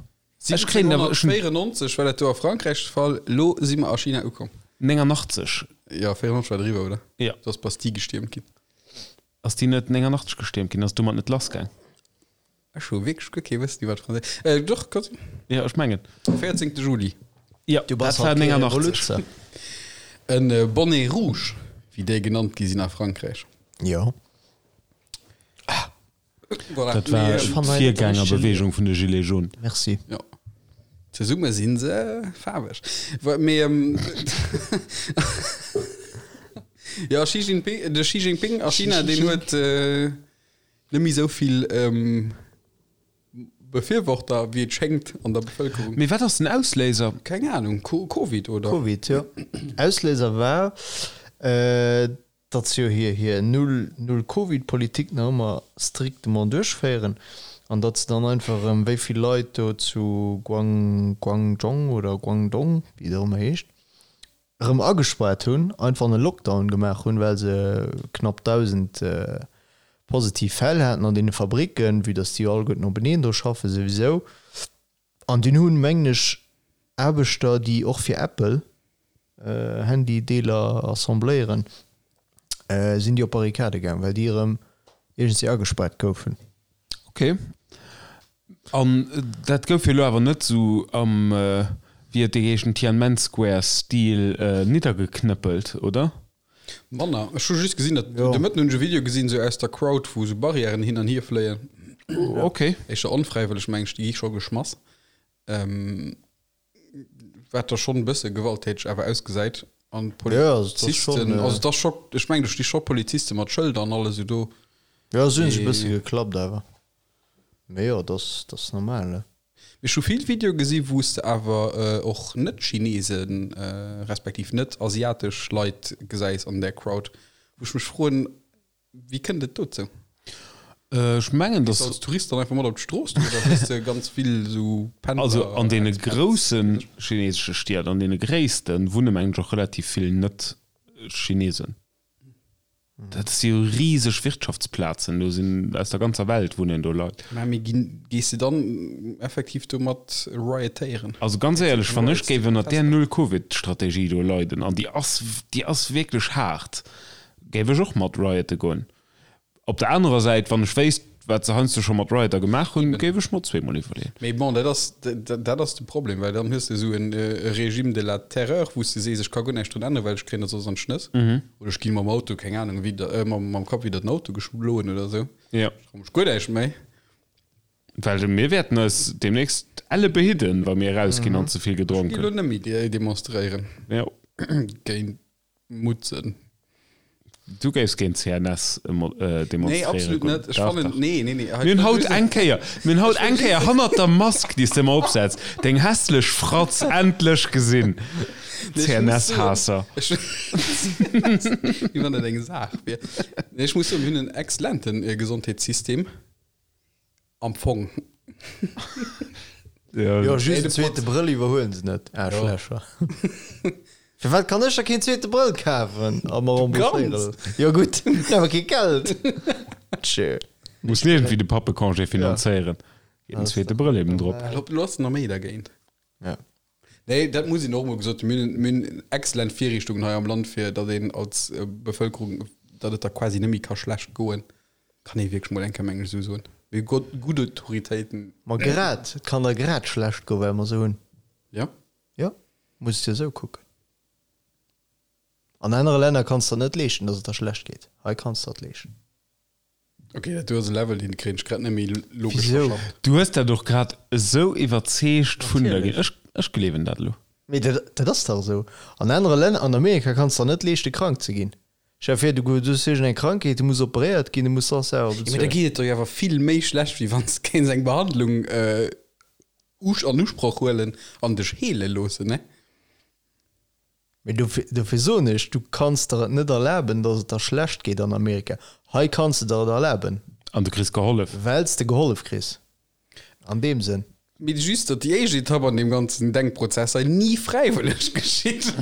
ech kréien awer, ech hunn. 1794 war dat do a Frankräich de Fall, elo si mer a China ukomm. 89. Jo, 94 war driwwer, oder? Jo. Do ass d'Bastille gestiermt ginn. Ass déi net 89 gestiermt ginn? Ass domat net lassgaang? Ech hu wierklech guer kee Wëssen iwwer d'Franséisch. Äh, doch, ka sinn. Jo, ech mengen. 14. Juli. Jo, Du bass dat war halt kee 89. Revoluzzer. En äh, Bonnet rouge, wéi déi genannt gi sinn a Frankräich. Jo. Voilà. Dat war Mee, Ech fannen hei net de richtege d'Virgängerbewegung vun de Gilets jaunes. Merci. Jo. Zesumme si se faarweg. Wa- Mee, ähm, jo, Xi Jinping, de Xi Jinping a China, deen huet äh, Net méi esou vill Befürworter, wéi et schéngt, an der Bevëlkerung. Mee wat ass den Ausléiser? Keng Ahnung, Covid, oder? Covid, jo. Ausléiser war, datt se jo hir hir Null-Null-Covid-Politik nach ëmmer strictement duerchféieren an datt se dann einfach erëm, wéi vill Leit do zu Guang, Guangzhong oder Guangdong, wéi et och ëmmer heescht, erëm agespaart hunn, einfach en Lockdown gemaach hunn, well se knapp 1.000 positiv Fäll haten an deene Fabricken, vue dass déi jo alleguerten openeen do schaffen souwisou. An dunn hunn, mengen ech, Aarbechter, déi och fir Apple Handydeeler assembléieren, sinn déi op Barrikade gaang, well déi erëm iergendwéi agespaart goufen. Ok. An dat gouf jo elo awer net esou am, wéi huet dee geheeschen, Tianmen Square Stil niddergeknëppelt, oder? Manner. Ech hu just gesinn, datt, de Mëtten hunn ech e Video gesinn, esou aus der Crowd, wou esou Barrièren hin an hier fléien. Ok. Éischter onfräiwëlleg, meng ech, déi gi scho geschmass. Wat da schonn e bësse gewalttäteg awer ausgesäit. An d'Polizisten, also et ass scho, ech mengen do sti scho Poliziste mat Schëlder an alles esou do. Jo, se hunn sech e bësse geklappt awer. Mee jo, dat ass, dat ass normal, ne? Mee ech hu vill Videoe gesi wou s de awer och net-Chinesen, respektiv net-asiatesch Leit gesäis an där Crowd, wou ech mech froen, Wéi kënnt et dozou? Ech mengen, dass. Gees de als Tourist dann einfach mat op d'Strooss do oder hues de ganz vill esou Pendler? Also an deene grousse chinesesche Stied, an deene gréissten, wunne mengen ech och relativ vill Net-Chinesen. Dat si jo riseg Wirtschaftsplazen, do sinn aus der ganzer Welt wunnen do Leit. Mä mee ginn, gees de dann effektiv do mat riotéieren? Also ganz éierlech, wann ech géif ënnert där Null-Covid-Strategie do leiden, an déi ass, déi ass wierklech haart, géif ech och mat riote goen. Op der anerer Säit, wann ech wéisst, wat se heiansdo scho mat Rioter gemaach hunn, géif ech mer zweemol iwwerleeën. Mee bon, dat ass, dat ass de Problem, well dann hues de esou e Régime de la terreur, wou s de sees, ech ka guer näischt drun änneren, well ech kréien dat soss an d'Schnëss. Oder ech gi mam Auto, keng Anung, widder, mam Kapp widder den Auto geschloen oder esou. Jo. Ech trau mech guer näischt méi. Well mir wäerten eis deemnächst elle behidden, wa mir erausginn an ze vill gedronk hunn. Ech gi lo net méi demonstréieren. Jo. Géint Mutzen. Du géifs géint CNS demonstréiere Nee, absolut net. Ech fannen, nee, nee, nee. Mir hunn haut eng Kéier, mir hunn haut eng Kéier hannert der Mask, déi s de ëmmer opsetz, deng hässlech Fratz endlech gesinn. CNS-Haasser. Wéi wann dat eng Saach wier. Nee, ech muss soen, mir hunn en exzellente Gesondheetssystem. Am Fong. Jo, just en zweete Brëll iwwerhuelen se net, Aarschlächer. Firwat kann ech da keen zweete Brëll kafen a mer rembourséiere loossen? Jo gutt, hunn awer kee Geld. Tjö. Muss iergendwéi de Pappecongé finanzéieren. Geet en zweete Brëll eben drop. Lo ass nach méi dergéint. Ja. Nee, dat muss een och emol gesot hunn. Mir hunn, mir hunn exzellent Virriichtungen hei am Land, fir datt een als Bevëlkerung, datt et der quasi net méi ka schlecht goen. Kann ee wierklech mol eng Kéier, mengen ech, esou soen. Mir hu gutt, gutt Autoritéiten. Ma grad, et kann der grad schlecht goen, well mer se hunn. Jo. Jo, muss et jo esou kucken. An anere Länner kanns de der net leeschten, datt et der schlecht geet. Hei kanns de der et leeschten. Ok, dat do ass e Level, deen kréien ech grad net méi logesch Wisou? verschafft. Du hues dat och grad esou iwwerzeegt vun der ginn. Ech, ech gleewen dat elo. Mee dat, dat ass dach esou. An anere Länner, an Amerika kanns de der net leeschte krank ze ginn. Stell der vir, du hues iergend eng Krankheet, du muss operéiert ginn, du muss soss selwer Jo, mee da bezuelen. geet et der jo awer vill méi schlecht, wéi wann s de kéints eng Behandlung an Usproch huelen an dech heele loossen, ne? Mee dofir, dofir soen ech, du kanns der et net erlaben, datt et der schlecht geet an Amerika. Hei kanns de der et erlaben. An du kriss gehollef. Well s de gehollef kriss. An deem Sënn. Mee just, datt déi éischt Etapp an deem ganzen Denkprozess hei ni fräiwëlleg geschitt.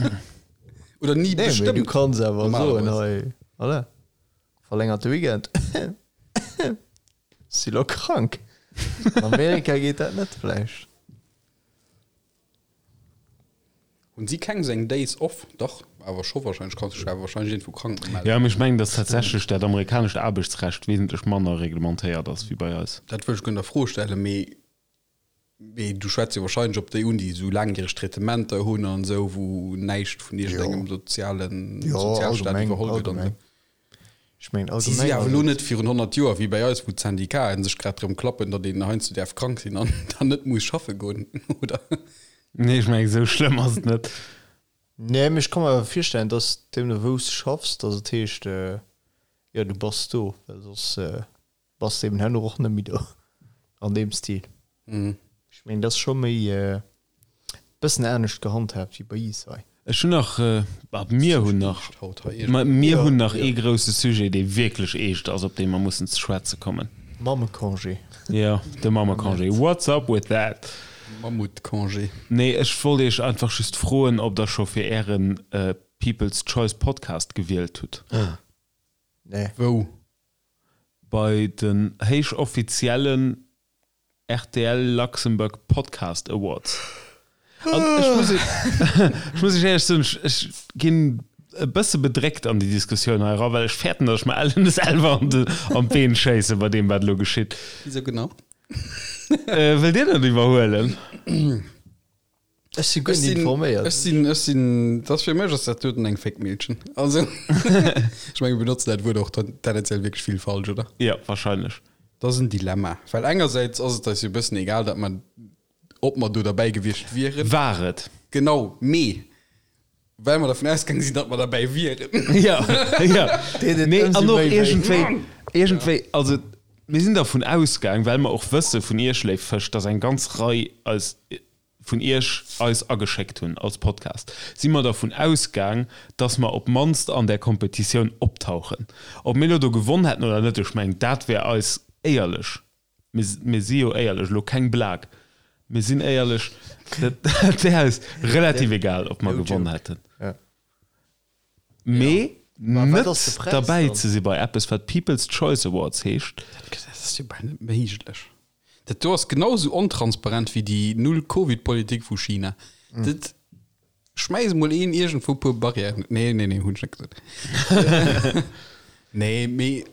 Oder ni Nee, mee bestëmmt. du kanns awer soen, Normalerweis. hei, voilà, verlängerte Weekend. Si lo krank. An Amerika geet dat net vläicht. Hunn si keng sou eng Days off? Dach, awer scho wahrscheinlech, kanns dech awer wahrscheinlech iergendwou krank mellen. Jo, mee ech mengen, datt tatsächlech dat amerikanescht Aarbechtsrecht wesentlech manner reglementéiert ass wéi bei eis. Dat wëll ech guer net a Fro stellen, mee mee du schwätz jo wahrscheinlech op déi un, déi esou laangjäreg Traitementer hunn an esou, wou näischt vun iergendengem sozialen Jo, Sozialstaat allgemeng, iwwerholl gëtt an allgemeng. esou. Ech mengen Si si allgemeng awer ass elo et. net virun 100 Joer wéi bei eis, wou d'Syndicaten sech grad drëm klappen, datt een heiansdo däerf krank sinn an dann net muss schaffe goen, oder? Nee, ech mengen, esou schlëmm ass et net. Nee, mee ech ka mer awer virstellen, dass deemno wou s de schaffs, dass et heescht, jo du bass do, well soss bass de eben herno och net méi do an deem Stil. Ech mengen, dat ass scho méi e bëssen anescht gehandhaabt wéi bei iis hei. Ech hunn nach, mir hunn nach, mir hunn nach ee grousse Sujet, dee wierklech eescht ass, op dee mer mussen ze schwätze kommen. Mammecongé. Jo, de Mammecongé. What's up with that? Mammutcongé. Nee, ech wollt iech einfach just froen, ob der scho fir ären People's Choice Podcast gewielt hutt. Nee. Wou? Bei den héichoffiziellen rtl Luxembourg Podcast Awards. An ech muss, ech muss iech éierlech soen, ech, ech ginn e bësse bedréckt an déi Diskussioun hei era, well ech fäerten, datt ech mer ellen selwer an de, an d'Been schéisse bei deem, wat elo geschitt. Wisou genau? Äh, wëllt Dir dat iwwerhuelen? Ech si guer Ech net sinn, informéiert. ech sinn, ech sinn, dat ass fir mech ass dat doten eng Féckmillchen. Also, ech menge mir benotzen dat Wuert och ten- tendenziell wierklech vill falsch, oder? Jo, wahrscheinlech. Dat ass en Dilemma, well engersäits ass et eis jo e bëssen egal, datt mer, ob mer do derbäi gewiescht wieren. War et. Genau, mee well mer dervun ausgaange sinn, datt mer derbäi wieren. Ja, ja. Deet et Nee, ëmsou an och méi wéi. iergendwéi, iergendwéi, also mir sinn dervun ausgaang, well mer och wësse vun Iech, léif Fësch, datt eng ganz Rei eis vun Iech eis ageschéckt hunn als Podcast, si mer dervun ausgaang, dass mer op d'mannst an där Kompetitioun optauchen. Ob mir elo do gewonn hätten oder net, ech mengen, dat wär eis éierlech, mir, mir si jo éierlech, elo keng Blague, mir sinn éierlech, dat wär eis relativ egal, ob mer No gewonn joke. hätten. Ja. Mee. Net derbäi ze si bei eppes, wat People's Choice Awards heescht. Dat ass jo bal net méiglech. Dat do ass genau esou ontransparent wéi déi Null-Covid-Politik vu China. Dat schmäiss emol een iergendwou e puer Barrièren. Nee, nee, nee, hunn ech net gesot. Nee, mee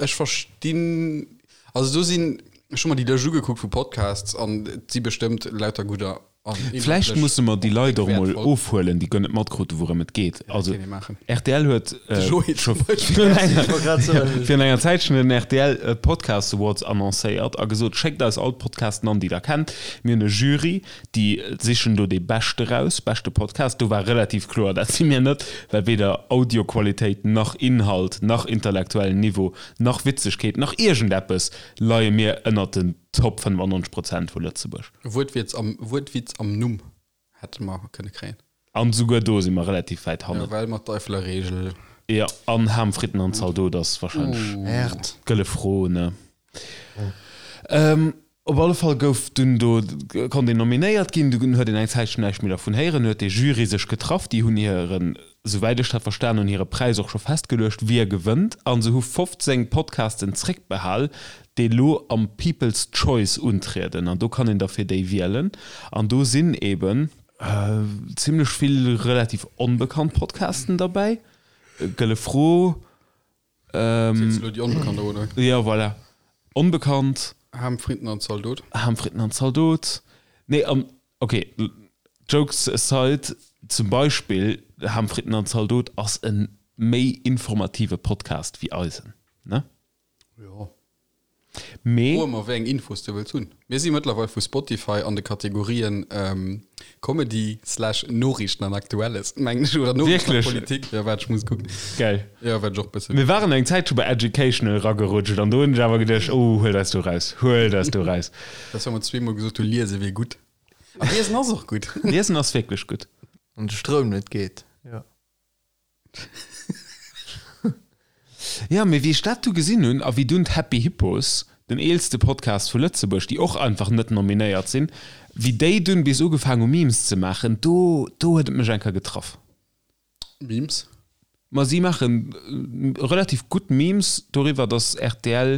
ech verstinn, also do sinn, ech hu mer déi Lëscht ugekuckt vu Podcasts an et si bestëmmt lauter gudder. Vläicht musse mer déi Leit och emol ofhuelen, déi guer net matkruten, wourëm et geet. Also rtl huet scho virun enger Zäitchen den rtl Podcast Awards annoncéiert a gesot, Schéckt eis all d'Podcasten an, déi der kennt. Mir hunn e Jury, déi sichen do dee beschte raus, beschte Podcast. Do war relativ kloer, dat si mir net, well weder Audioqualitéit nach Inhalt nach intellektuellen Niveau nach Witzegkeet nach iergendeppes leie mir ënnert den Top 95 Prozent vu Lëtzebuerg. Wuertwitz am, Wuertwitz am Numm hätte mer kënne kréien. An souguer do si mer relativ wäit hannen. Ja, well mat d'Eifeler Regel. Jo, an Ham, Fritten an Zaldot ass wahrscheinlech d'gëlle Fro, ne? Op alle Fall gouf dunn do, konnt een nominéiert ginn, dunn huet een eng Zäitchen näischt méi dervun héieren, huet dee Jury sech getraff, déi hunn hiren, souwäit ech dat verstan hunn, hire Präis och scho festgeluecht, wie gewënnt, a se hu 15 Podcasten zréckbehal, déi elo am People's Choice untrieden, an do kann een da fir déi wielen, an do sinn eben zimlech vill relativ onbekannt Podcasten derbäi, Gëlle Fro, Ziels du elo déi Onbekannt op, oder? Jo, voilà, Onbekannt. Ham, Fritten an Zaldot. Ham, Fritten an Zaldot. Nee, an ok, jokes aside, zum Beispill Ham, Fritten an Zaldot ass e méi informative Podcast wéi eisen, ne? Jo. Mee. Froe mer, wéi eng Infos de wëlls hunn. Mir si mëttlerweil vu Spotify an de Kategorien Comedy slash Noriichten an Aktuelles, mengen ech, oder Noriichten a Politik. Jo, waart, ech muss kucken. Geil. Jo, waart ech och bëssen. Mir waren eng Zäit scho bei Educational eragerutscht an do hunn ech awer geduecht, oh, huel eis do raus, huel eis do raus. Dat ass, wa mer zweemol gesot hu liese wier gutt. A liesen ass och gutt. Liesen ass wierklech gutt. Wann de Stroum net geet, jo. Ja, mee wéi ech dat du gesinn hunn a wéi dunn d'Happy Hippos, den eelste Podcast vu Lëtzebuerg, déi och einfach net nominéiert sinn, wéi déi dunn bis ugefaang hu Memes ze maachen, do, do huet et mech eng Kéier getraff. Memes? Ma si maache relativ gutt Memes doriwwer, datt rtl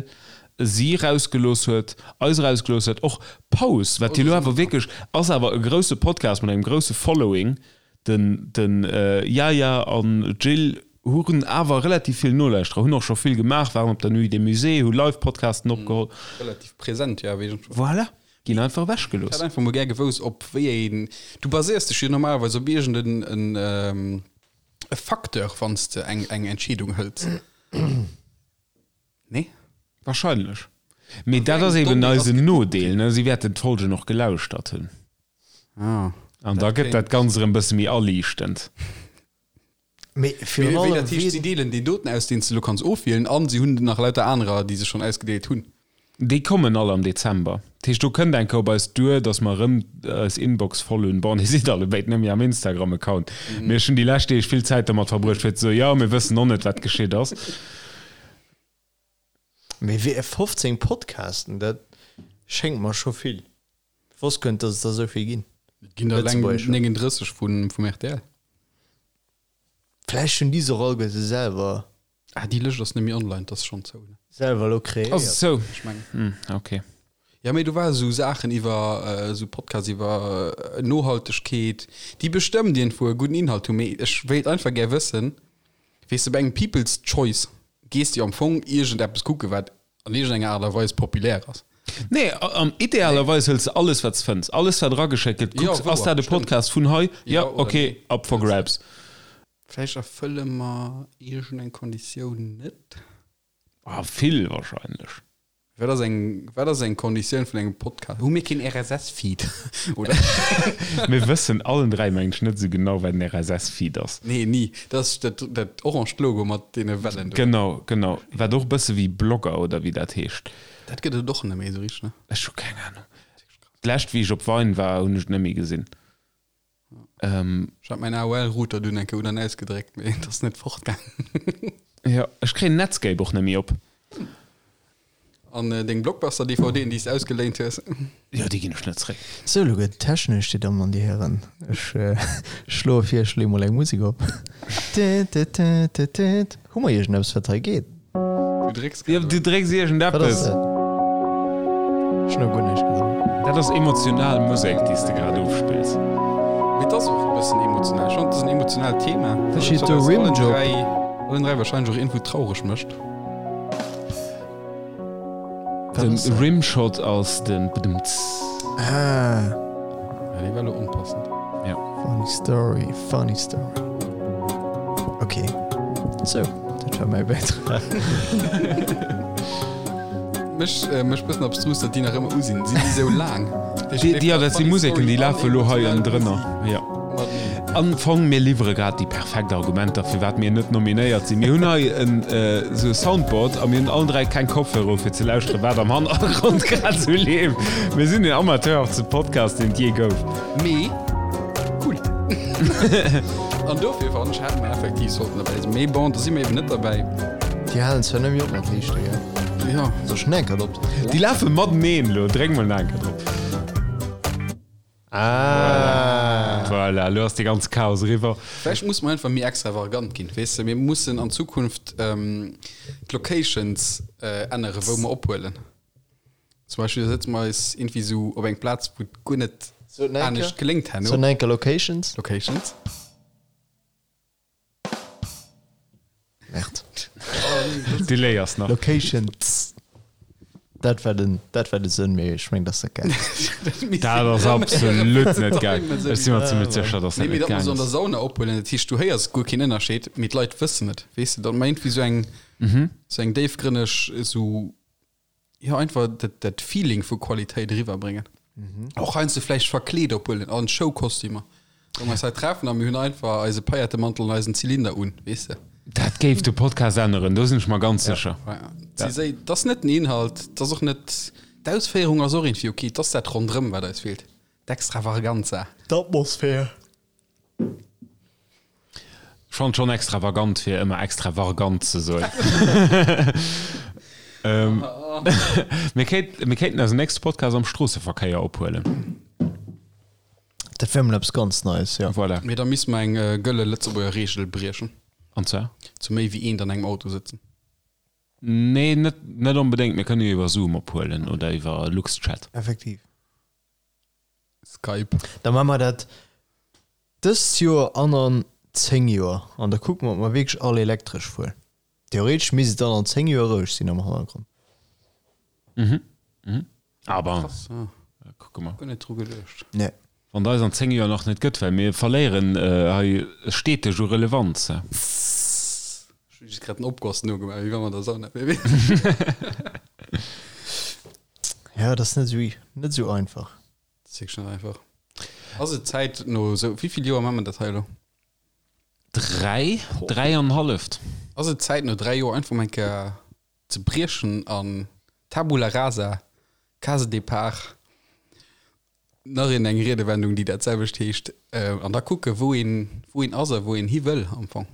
si rausgelooss huet, eis erausgelooss huet, och Paus, wat jo elo awer wierklech ass awer e grousse Podcast mat engem grousse Following, Den den Yaya an Jill hunn awer relativ vill Nolauschterer, hunn och scho vill gemaach, waren op der Nuit des Musées, hu Live-Podcasten opgeholl. Relativ present, jo, awer iergendwou. Voilà, ginn einfach ewech gelooss. Ech hätt einfach mol gär gewousst, op wéi een, du baséiers dech jo normalerweis op iergend en en e Facteur, wann s de eng eng Entscheedung hëls. Nee? Wahrscheinlech. Mee dat ass eben eisen Nodeel, ne? Si wäerten d'Folgen och gelauschtert hunn. Ah. An da gëtt dat Ganzt erëm e bësse méi aliichtend. Mee virun Wéi allem, dat heescht, si deelen déi doten aus, deen s de elo kanns ofwielen, an si hunn nach lauter anerer, déi se schonn ausgedeelt hunn. Déi kommen all am Dezember. Dat heescht, do kënnt eng Kéier op eis duer, datt mer erëm eis Inbox voll hunn. Bon, dir sidd allebéid net méi am Instagram-Account, mee ech hunn déi lescht Deeg vill Zäit domat verbruecht, fir ze soen, jo, mir wëssen och net, wat geschitt ass. Mee wéi 15 Podcasten, dat schéngt mer scho vill. Ech wosst guer net, datt et der esou vill ginn. Et ginn der eleng 39 vum rtl. Vläicht hunn déi se och alleguerte selwer. Ah, déi Lëscht ass net méi online, 't ass schonn zou, ne? Selwer elo kreéiert. Ass et zou? Ech mengen. Hm, ok. Ja, mee do ware sou Saachen iwwer, sou Podcasts iwwer Nohaltegkeet, déi bestëmmt iergendwou e gudden Inhalt hunn, mee ech wéilt einfach gär wëssen, weess de, bei engem People's Choice gees de jo am Fong iergendeppes kucken, wat an iergendenger Aart a Weis populär ass. Nee, am idealerweis hëls de alles, wat s fënns, alles, wat erageschéckt gëtt, kucks, ass dat e Podcast vun hei? Jo, ok, up for grabs. Vläicht erfëlle mer iergendeng Konditioun net? Ah, vill wahrscheinlech. Wat ass eng, wat ass eng Konditioun vun engem Podcast? Hu mir keen RSS-Feed, oder? Mir wëssen allen 3, mengen ech, net esou genau, wat en RSS-Feed ass. Nee, ni. Dat ass dat, dat orangt Logo mat deene Wellen do. Genau, genau. Wat och e bësse wéi Blogger, oder wéi dat heescht. Dat gëtt et och net méi esou richteg, ne? Ech hu keng Ahnung. D'lescht, wéi ech op Vine war, hunn ech et net méi gesinn. Ech hat mäin AOL-Router dunn eng Kéier un an ausgedréckt, mee et ass net fortgaangen. Jo, ech kréien Netscape och net méi op. An deng Blockbuster-DVDen, déi s de ausgeléint hues? Jo, déi ginn ech net zréck. Sou, elo gëtt et technesch, Dir Dammen an Dir Hären. Ech schloe vir, ech leeë mol eng Musek op. Hu mer iergendeppes, wat hei geet? Du drécks Jo, grad du op. drécks Wat ass iergendeppes. dat? Ech hunn nach guer näischt gedréckt. Dat ass emotional Musek, déi s de grad ofspills. Mee et ass och e bëssen emotional. Ech fannen, et ass en emotionaalt Thema, Da steet wat do eis allen Rimjob. 3, allen 3 warscheinlech och iergendwou traureg mécht. Den Rimshot ass den Bdmts. Ah. Ja, dee war lo onpassend. Ja. Funny story, funny story. Okay. Sou, dat war mäi Bäitrag. Mech, äh, mech bëssen abstrus, datt déi nach ëmmer u sinn. Sinn déi sou laang? Déi, déi, ja, dat si Museken, déi lafe lo hei ënnendrënner. Ja. Am Fong, mir liwwere grad déi perfekt Argumenter, firwat mir net nominéiert sinn. Mir hunn hei en esou e Soundboard a mir hunn allen 3 keng Kopfhörer u fir ze lauschteren, wat am Hannergrond grad esou leeft. Mir sinn den amateurhaftste Podcast, deen et jee gouf. Mee cool. An dofir fannen ech, hätte mer effektiv sollten derbäi sinn. Mee bon, da si mer eben net derbäi. Déi halen zwar net méi op mat liichte, gell? Jo. Soll ech en Enker drop? Déi lafe mateneen elo. Dréck mol en Enker drop. Ah. Voilà, elo ass de ganze Chaos eriwwer. Vläicht musse mer einfach méi extravagant ginn, weess de. Mir mussen an Zukunft d'Locations änneren, wou mer ophuelen. Zum Beispill da sëtze mer eis iergendwéi esou op eng Plaz, wou et guer net anescht geléngt herno. So enker Locations. Locations. Merde. Du léiers nach. Locations. Dat war den, dat war de Sënn, mee ech meng, dat ass net gaang. Dat ass absolut net gaang. Ech si mer zimmlech sécher, dass dat Nee, mee net datt mer gaang se an der ass. Sauna ophuelen, dat heescht, du héiers guer keen Ënnerscheed, mee d'Leit wëssen et, weess de, datt mer iergendwéi esou eng, esou eng déifgrënneg, esou Jo, einfach dat, dat Feeling vu Qualitéit eriwwerbréngen. Och heiansdo vläicht verkleet ophuelen an Showkostümer. Wou mer eis hei treffen a mir hunn einfach eise Paillettemantel an eisen Zylinder un, weess de. Dat géif de Podcast änneren, do sinn ech mer ganz sécher. Ja. Si séi, 't ass net den Inhalt, 't ass och net, d'Ausféierung ass och iergendwéi ok, 't ass dat ronderëm, wat eis feelt, d'Extravaganza. D'Atmosphär. Ech fannen et schonn extravagant fir ëmmer extravargant ze soen. Mir kéint, mir kéinten eisen nächste Podcast am Stroosseverkéier ophuelen. Dat wär mol eppes ganz Neies, jo. Voilà. Mee da misste mer eng gëlle Lëtzebuerger Reegel briechen. An zwar? Zu méi wéi eent an engem Auto sëtzen. Nee, net, net onbedéngt. Mir kënne jo iwwer Zoom ophuelen oder iwwer Luxchat. Effektiv. Skype. Da maache mer dat dëst Joer an an 10 Joer an da kucke mer, ob mer wierklech all elektresch fueren. Theoretesch misst et dann an 10 Joer roueg sinn am Hannergrond. Mhm. Mhm. Aber Krass, ja. kucke mer. Guer net dru geduecht. Nee. Wann et eis an 10 Joer nach net gëtt, well mir verléieren hei steteg u Relevanz. Ech hu just grad den Opgoss nogemaach, wéi wa mer der Sauna wieren. Ja, dat ass net esou, net esou einfach. Dat ass wierklech net einfach. Ass et Zäit no esou, wéi vill Joer maache mer dat hei elo? Dräi, dräi an halleft. Ass et Zäit no dräi Joer einfach mol eng Kéier ze briechen an Tabula rasa, Case départ, nach een eng Riedewendung déi dat selwecht heescht, an da kucke wou een, wou een ass a wou een hi wëll am Fong?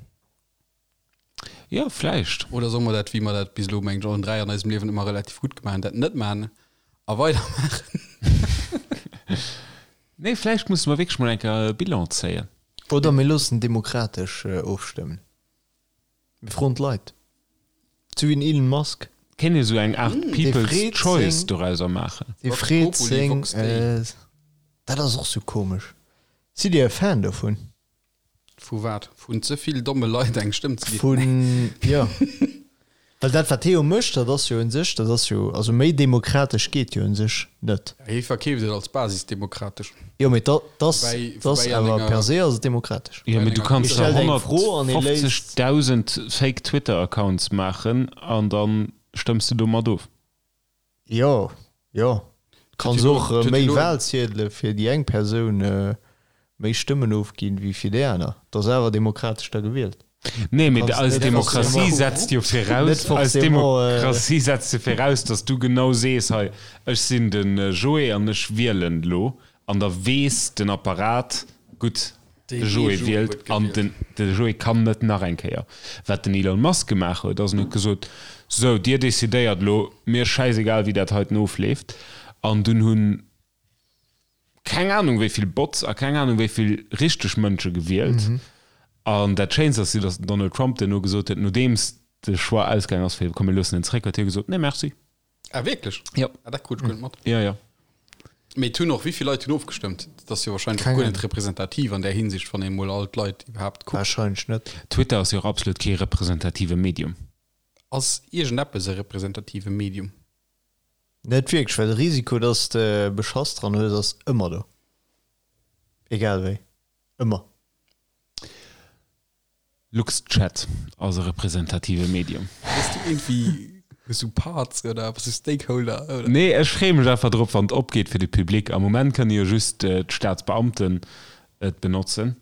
Jo, vläicht. Oder solle mer dat, wéi mer dat bis elo, mengen ech, allen 3 an eisem Liewen ëmmer relativ gutt gemaach hunn, dat net maachen a weidermaachen? Nee, vläicht musse mer wierklech mol eng Kéier e Bilan zéien. Oder mir loossen demokratesch ofstëmmen. Mir froen d'Leit. Sou wéi den Elon Musk. Kéint ee sou eng Aart People's freet Choice seng- dorauser maachen. Dee Vox freet populi, seng. vox dei. Dat ass och sou komesch. Sidd Dir e Fan dovun? Vu wat? Vun ze vill domme Leit eng Stëmm ze ginn? Vun, jo. Well dat, wat hie jo mécht, dat ass jo un sech, dat ass jo, also méi demokratesch geet jo un sech net. Hie verkeeft et als basisdemokratesch. Jo, mee dat ass, Woubäi, dat ass woubäi an awer enger. per se ass et demokratesch. Jo, mee du kanns Hie der stellt eng Fro an hie léisst. 150.000 fake Twitter-Accounts maachen an da stëmms de domat of. Jo, jo. Kanns och méi Wahlziedele fir déi eng Persoun méi Stëmmen ofginn wéi fir déi aner. Et ass awer demokratesch da gewielt. Nee, mee eis Demokratie setzt jo viraus, eis Demokratie setzt jo viraus, datt du genau sees, hei, ech sinn de Joé an ech wielen elo. An da weess den Apparat, gutt, de Joé wielt an den de Joé kann net nach eng Kéier. Wat den Elon Musk gemaach huet, ass en huet gesot, Sou, dir decidéiert elo, mir schäisegal wéi dat heiten ofleeft. An dunn hunn keng Ahnung wéi vill Bots a keng Ahnung wéi vill richteg Mënsche gewielt. An dat Schéinst ass jo, datt den Donald Trump duerno gesot huet, nodeems de Choix ausgaang ass fir komm mir loossen en zeréck, huet hie gesot, Nee merci. Ah wierklech? Jo. Ah dat krut ech guer net mat. Jo, jo. Mee et hunn och, wéi vill Leit hunn ofgestëmmt? Dat ass jo wahrscheinlech och guer net representativ an där Hinsicht, wann ee mol all d'Leit iwwerhaapt kuckt. Wahrscheinlech net. Twitter ass jo och absolut kee representative Medium. Ass iergendeppes e representative Medium? Net wierklech, well de Risiko, dass de Beschass dran hues, ass ëmmer do. Egal wéi. Ëmmer. LuxChat ass e representative Medium. Bass du iergendwéi, hues du Parts oder bass du Stakeholder oder? Nee, ech freeë mech einfach drop, wann et opgeet fir de Public. Am Moment kënne jo just d'Staatsbeamten et benotzen.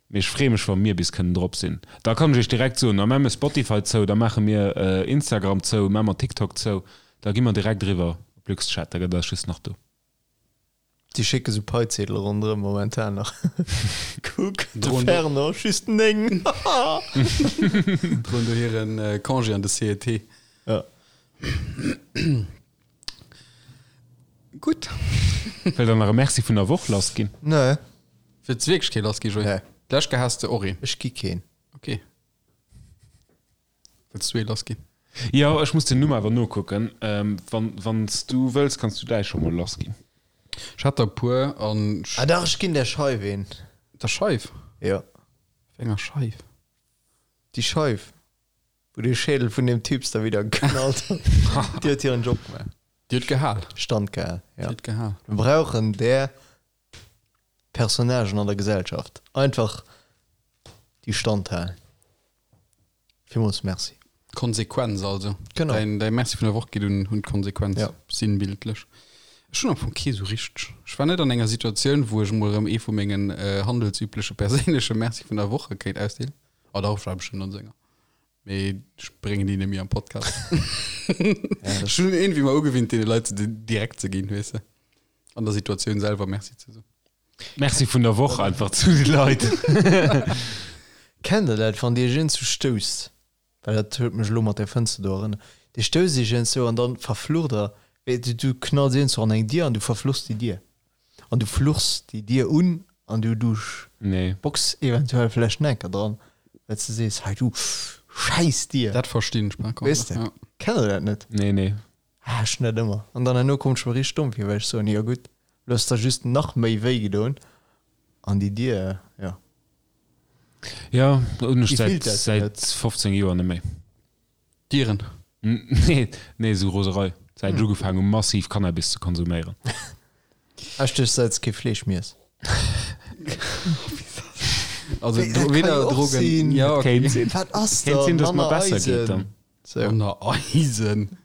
Mee ech freeë mech, wa mir bis kënnen drop sinn. Da kann ech iech direkt soen, da maache mir Spotify zou, da maache mir Instagram zou, maache mer TikTok zou, da gi mer direkt eriwwer op LuxChat, da gëtt eis just nach do. Déi schécke sou Paiziedele ronderëm momentan nach. Kuck, de Fernand, just 9. Droen do hiren Congé an de CET. Ja. Gutt. Wëllt der nach e Merci vun der Woch lass ginn? Nee. Wëlls de wierklech kee lass gi, Joé? Nee. D'lescht Kéier has de och een. Ech gi keen. Ok. Wëlls du ee lass ginn? Jo, ech muss den Numm awer nokucken. Wann, wann s du wëlls, kanns du däi scho mol lass ginn. Ech hat der e puer an. Ah dach, ech ginn der Scheif een. Der Scheif? Jo. Wéi enger Scheif? Déi Scheif, wou de Schädel vun deem Typs da widder geknallt huet. Déi huet hiren Job gemaach. Déi huet gehal. Stand gehal, jo. Déi huet gehal. Mir brauchen där Personnagen an der Gesellschaft. Einfach déi Stand halen. Villmools Merci. Konsequenz also. Genau. Däin, däi Merci vun der Woch geet un, un d'Konsequenz. Ja. Sinnbildlech. Ech hunn am Fong kee sou richteg. Ech war net an enger Situatioun, wou ech emol erëm ee vu mengen handelsübleche perséinleche Merci vun der Woche kéint ausdeelen. Oh dach, ech war bestëmmt an senger. Mee ech bréngen déi net méi am Podcast. Ech hunn iergendwéi mer ugewinnt, deene Leit se direkt ze ginn, weess de. An der Situatioun selwer Merci ze soen. Merci vun der Woch einfach zu de Leit. Kennt der dat, wann dir iech iergendwou stousst, well dat huet mech elo mat där Fënster do erënnert, dir stousst iech iergendwou an dann verflucht der, wéi du du knalls iergendwou an eng Dier an du verfluchs déi Dier an du fluchs déi Dier un an du du Nee. bocks eventuell vläicht en Enker dran, well s de sees, hei du schäiss Dier. Dat verstinn ech par contre, Weess de? ja. Kennt der dat net? Nee, nee. Ah, ech net ëmmer. An dann herno kommt ech mer richteg domm vir, well ech soen, jo gutt, lo hues der just nach méi wéi gedoen an déi Dier, jo. Jo, hunn ech Déi säit fillt dat jo säit net. 15 Joer net méi. Dieren? Nee, nee, esou Roserei. Säit ech ugefaangen hu massiv Cannabis ze konsuméieren. Ah, ech duecht, säit s kee Fleesch méi ess. Also Wéi, dat kann weder jo och Drogen, sinn. ja, okay. Kéint sinn. Wat ass Kéint da? sinn, dass et mer Manner besser geet dann. Eisen. Sou. Manner Eisen.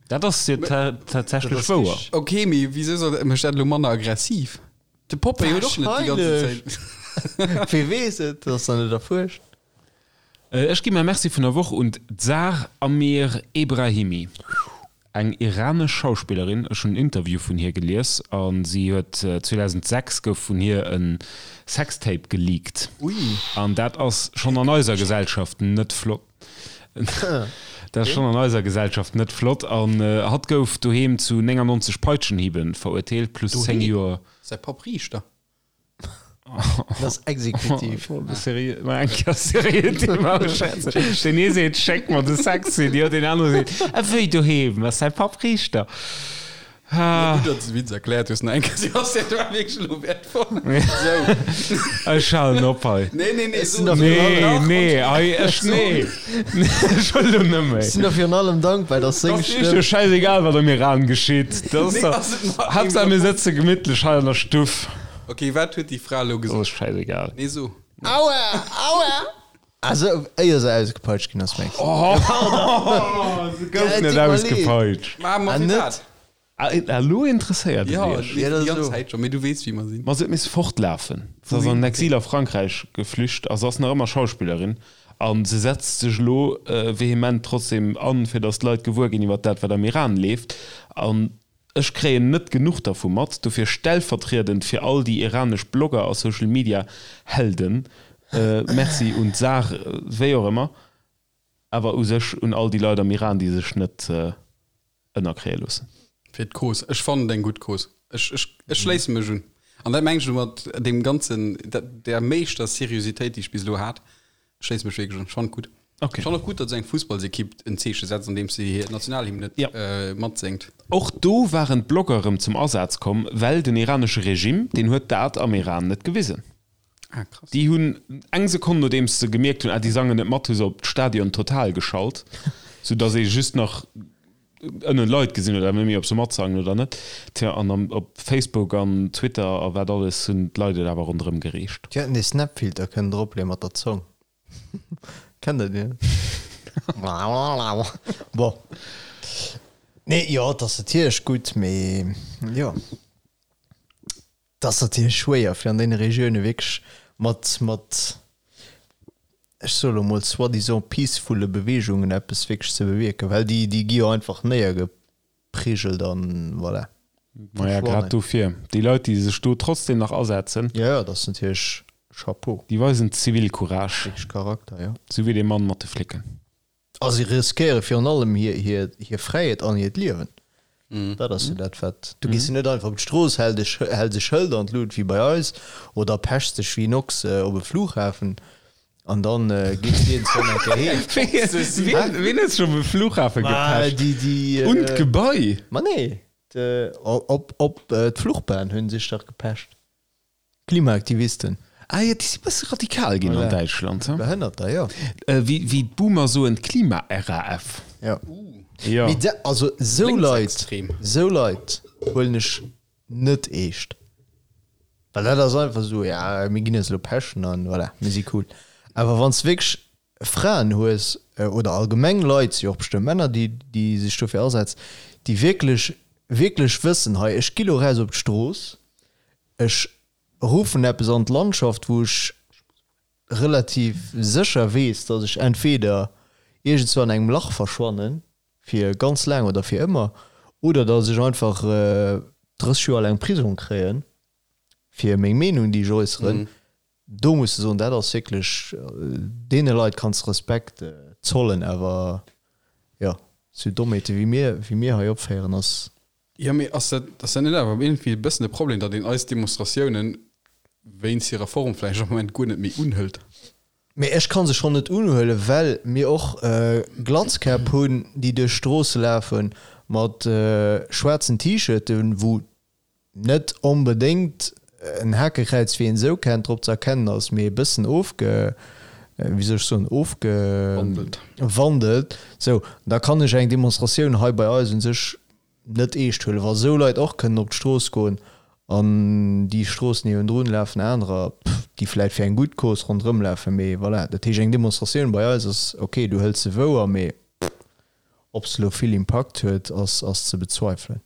Dat ass jo tatsächlech wouer. Ok, mee wisou soll mécht dat elo manner aggressiv? De Popeye huet och net déi ganze Zäit. Wee weess et, dat ass nach net erfuerscht. Ech gi mäi Merci vun der Woch un d'Zar Amir Ebrahimi, eng iranesch Schauspillerin. Ech hunn en Interview vun hir gelies a si huet 2006 gouf vun hir e Sextape geleakt. An dat ass schonn an eiser Gesellschaft net flott. Dat ass schonn an eiser Gesellschaft net flott. An hatt gouf doheem zu 99 Peitschenhiebe verurteelt, plus 10 Joer. Säi Papp Riichter. Dat ass exekutiv. Seriö, mal eng Kéier seriö Thema beschwätzen. Den ee seet, schéck mer de Sex-CD, den anere seet, a wéi doheem, ass säi Papp Riichter. Ah. Gutt, datt s de Witz erkläert hues, nach eng Kéier. Sebastian, dat war wierklech elo wäertvoll. Sou. Ech halen op hei. Nee, nee, nee, so. Nee, nee, hei, ech, nee. Ech wëll elo net méi. Ech sinn der virun allem dankbar, datt seng Ass iech Stëmm. jo schäisegal, wat am Iran geschitt. Dat ass Nee, dach, ass et nach Haaptsaach mir sëtze gemittlech hei an der Stuff. Ok, wat huet déi Fra elo Dat gesot? ass schäisegal. Nee, so. Aua! Aua! Also, éier se ausgepeitscht ginn ass, mengs de? Oh, se gouf net ausgepeitscht. Ma, ma Ah, fir net? wat? Ah, elo interesséiert et Ja, iech. déi Ja, dat ganz ass elo. Zäit schon, mee du weess, wéi mer sinn. Ma se huet misse fortlafen. Se ass an den Exil a Frankräich geflücht a se ass nach ëmmer Schauspillerin. A se setzt sech elo vehement trotzdem an, fir datt d'Leit gewuer ginn iwwer dat, wat am Iran leeft. An Ech kréien net genuch dervu mat, dofir stellvertriedend fir all déi iranesch Blogger a Social Media Helden, Merci un d'Sar, wéi och ëmmer. Awer u sech un all déi Leit am Iran, déi sech net ënnerkréie loossen. Fir d'Cause. Ech fannen et eng gutt Cause. Ech, ech, ech schléisse mech un. An dat mengen ech elo mat deem ganzen, der meeschter Seriositéit, déi ech bis elo hat. Ech schléisse mech wierklech un. Ech fannen et gutt. Okay. Ech fannen och gutt, datt esou eng Fussballsekipp en Zeeche setzt, andeems se hir Nationalhymn net Ja. matséngt. Och do waren d'Blogger erëm zum Asaz komm, well den iranesche Regime, deen huet dat am Iran net gewisen. Ah, krass. Déi hunn eng Sekonn nodeems se gemierkt hunn, ah déi sangen net mat, hu se op d'Stadion total geschalt, sou datt ee just nach ënnen Leit gesinn huet, awer net méi ob se matsangen oder net. Tja, an am op Facebook an Twitter a wat alles hunn d'Leit et awer ronderëm gereecht. Déi hätten dee Snapfilter kënnen dropleeën mat der Zong. Kennt der deen? Bon. Nee, jo, et ass natierlech gutt, mee jo. Et ass natierlech schwéier, fir an deene Regioune wierklech mat, mat, ech soe lo mol soi-disant peacefulle Beweegungen eppes wierklech ze bewierken, well déi, déi gi jo einfach néiergeprigelt an voilà, Maja, grad verschwannen. dofir, déi Leit, déi sech do trotzdem nach asetzen. Jo, jo, dat ass natierlech Chapeau. Déi weisen Zivilcourage. Wierklech Charakter, jo. Sou wéi dee Mann mat de Flicken. A si riskéiere virun allem hir Fräiheet an hiert Liewen. Dat ass jo dat, wat. Du gees jo net einfach op d'Strooss, häls e Schëld an d'Lut wéi bei eis oder pechs dech wéi en Ochs op e Flughafen an da gees de iergendwann eng Kéier heem. Wien huet sech op e Flughafe gepecht? Un d'Gebai? Ma nee, op d'Fluchbahn hu sech dach gepecht. Klimaaktivisten. Ah jo, déi si bësse radikal ginn an Däitschland, he? Behënnerter, jo. Wéi d'Boomer soen, d'Klima-RAF. Jo. Jo. Mee da, also esou Leit, Lénksextrem. esou Leit huelen ech net eescht. Well dat ass einfach esou, ja, mir ginn eis elo pechen an voilà, mir si cool. Awer wann s de wierklech Fraen hues, oder allgemeng Leit, si jo och bestëmmt Männer, déi, déi sech dofir asetzen, déi wierklech, wierklech wëssen, hei, ech gi lo raus op d'Strooss, Ech ruffen eppes an d'Landschaft, wou ech relativ sécher weess, datt ech entweder iergendzwou an engem Lach verschwannen, fir ganz laang oder fir ëmmer, oder datt ech einfach 30 Joer laang Prisong kréien, fir meng Meenung, déi ech äusseren. Do muss de soen, dat ass wierklech, deene Leit kanns de Respekt zollen, awer jo, sou Dommheete wéi mir, wéi mir hei opféieren, ass. Jo, mee ass dat, ass dat net awer iergendwéi e bëssen de Problem, datt een eis Demonstratiounen wéinst hirer Form vläicht am Moment guer net méi unhëlt? Mee ech ka se schonn net unhuelen, well mir och Glatzkäpp hunn, déi duerch d'Stroosse lafe mat schwaarzen T-Shirten, wou net onbedéngt en Hakekräiz, wéi een esou kennt, drop ze erkennen ass, mee e bëssen ofge, wéi soll ech soen, ofgewandelt. Sou, da kann ech eng Demonstratioun hei bei eis u sech net eescht huelen, wa sou Leit och kënnen op d'Strooss goen an déi Strooss niewendrun lafen anerer, déi vläit fir eng gutt Cause ronderëm lafen, mee voilà. Dat heescht, eng Demonstratioun bei eis ass ok, du hëls se wouer, mee ob se elo vill Impakt huet, ass ze bezweifelen.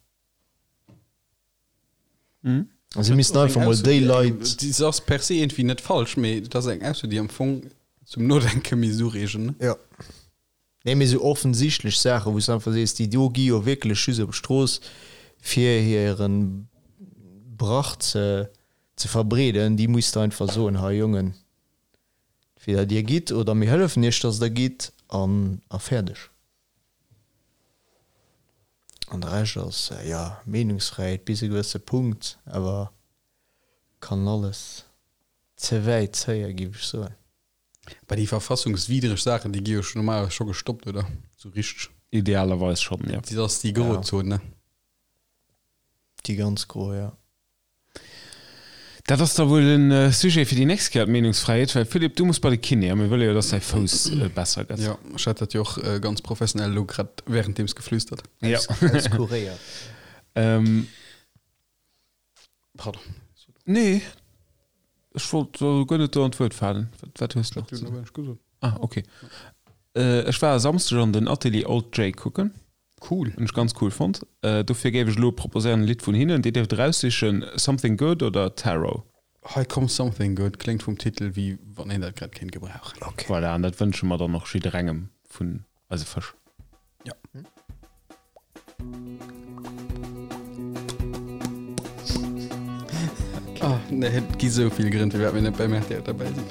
Mhm. Se missten einfach mol déi Leit. Déi ass per se iergendwéi net falsch, mee et ass eng Ausso, déi am Fong zum Nodenke misst ureegen, ne? Jo. Nee, mee sou offensichtlech Saachen, wou s de einfach sees, déi do gi jo wierklech just op d'Strooss, fir hire Brach ze ze verbreeden, déi muss de einfach soen, Hei Jongen, entweder dir gitt oder mir hëllefen iech, dass der gitt, an a fäerdeg. An de Rescht ass, jo, Meenungsfräiheet bis e gewësse Punkt, awer kann alles ze wäit zéien, géif ech soen. Bah, déi verfassungswiddreg Saachen, déi gi jo scho normalerweis scho gestoppt, oder? Sou richteg. Idealerweis schonn, jo. Dat ass déi Grozon, ne? Déi ganz gro, jo. Dat ass da wuel e Sujet fir déi nächst Kéier, d'Meenungsfräiheet, well Philippe, du muss bei de Kiné a mir wëlle jo, dass däi Fouss besser gëtt. Jo, ech hat dat jo och ganz professionell elo grad währenddeems geflüstert. Jo. Auskuréiert. Pardon. Nee, ech wollt guer net do an d'Wuert falen. Wat hues de nach ze soen? Ah, ok. Ech war e Samsdeg an den Atelier Old Jay kucken. Cool. Hunn ech ganz cool fonnt. Dofir géif ech elo proposéieren e Lidd vun hinnen. Dir dierft eraussichen, Something Good oder Tarot. Hei komm, Something Good kléngt vum Titel wéi wann een dat grad kéint gebrauchen. Ok. Voilà, an dat wënsche mer dann och jidderengem vun eise Fësch. Ja. Ah, nee, et gi sou vill Grënn, firwat mir net beim rtl derbäi sinn.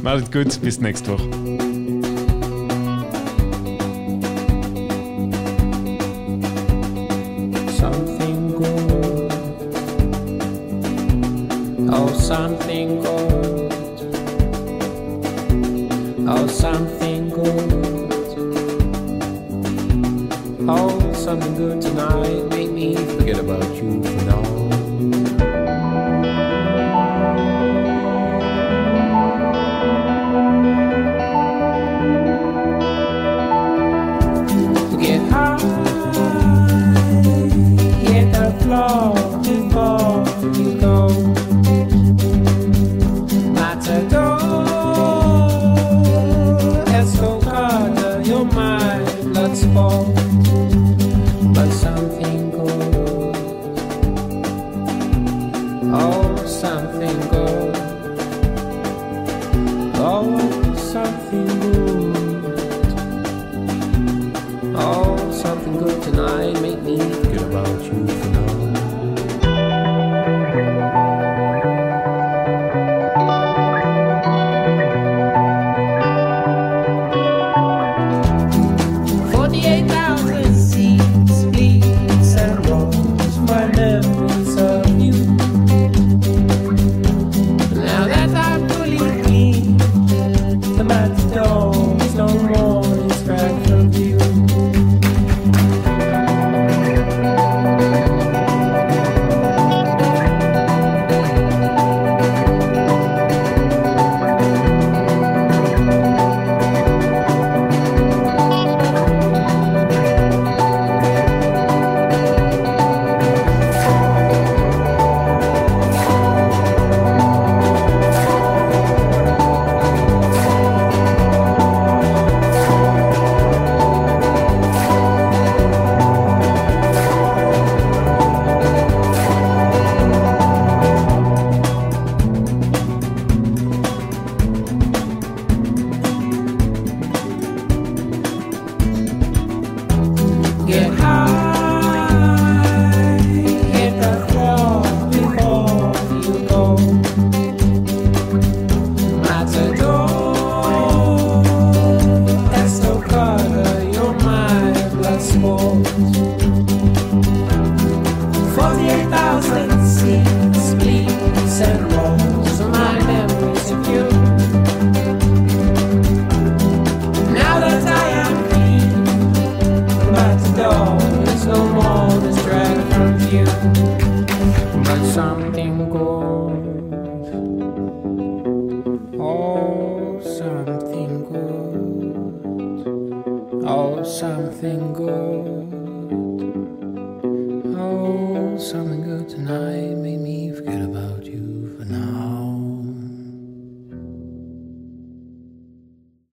Maacht et gutt, bis d'nächst Woch. Oh, something good. Oh, something good. Oh, something good tonight. Make me forget about you for now. Get high, hit the floor before you go. Matador, Estocada, you're my blood sport. But something good, oh, something good, oh, something good. Oh, something good tonight make me forget about you for now. 48,000 seats, bleeds and rolls my memories of you. Now that I'm fully clean, the matador is no more in track from view. Get high, hit the floor before you go. Matador, Estocada, you're my blood sport. 48,000 seats, bleeds and rolls, my memories of you. Now that I am clean, the matador is no more this drag from view. But something good, oh, something good, oh, something good, oh, something good tonight.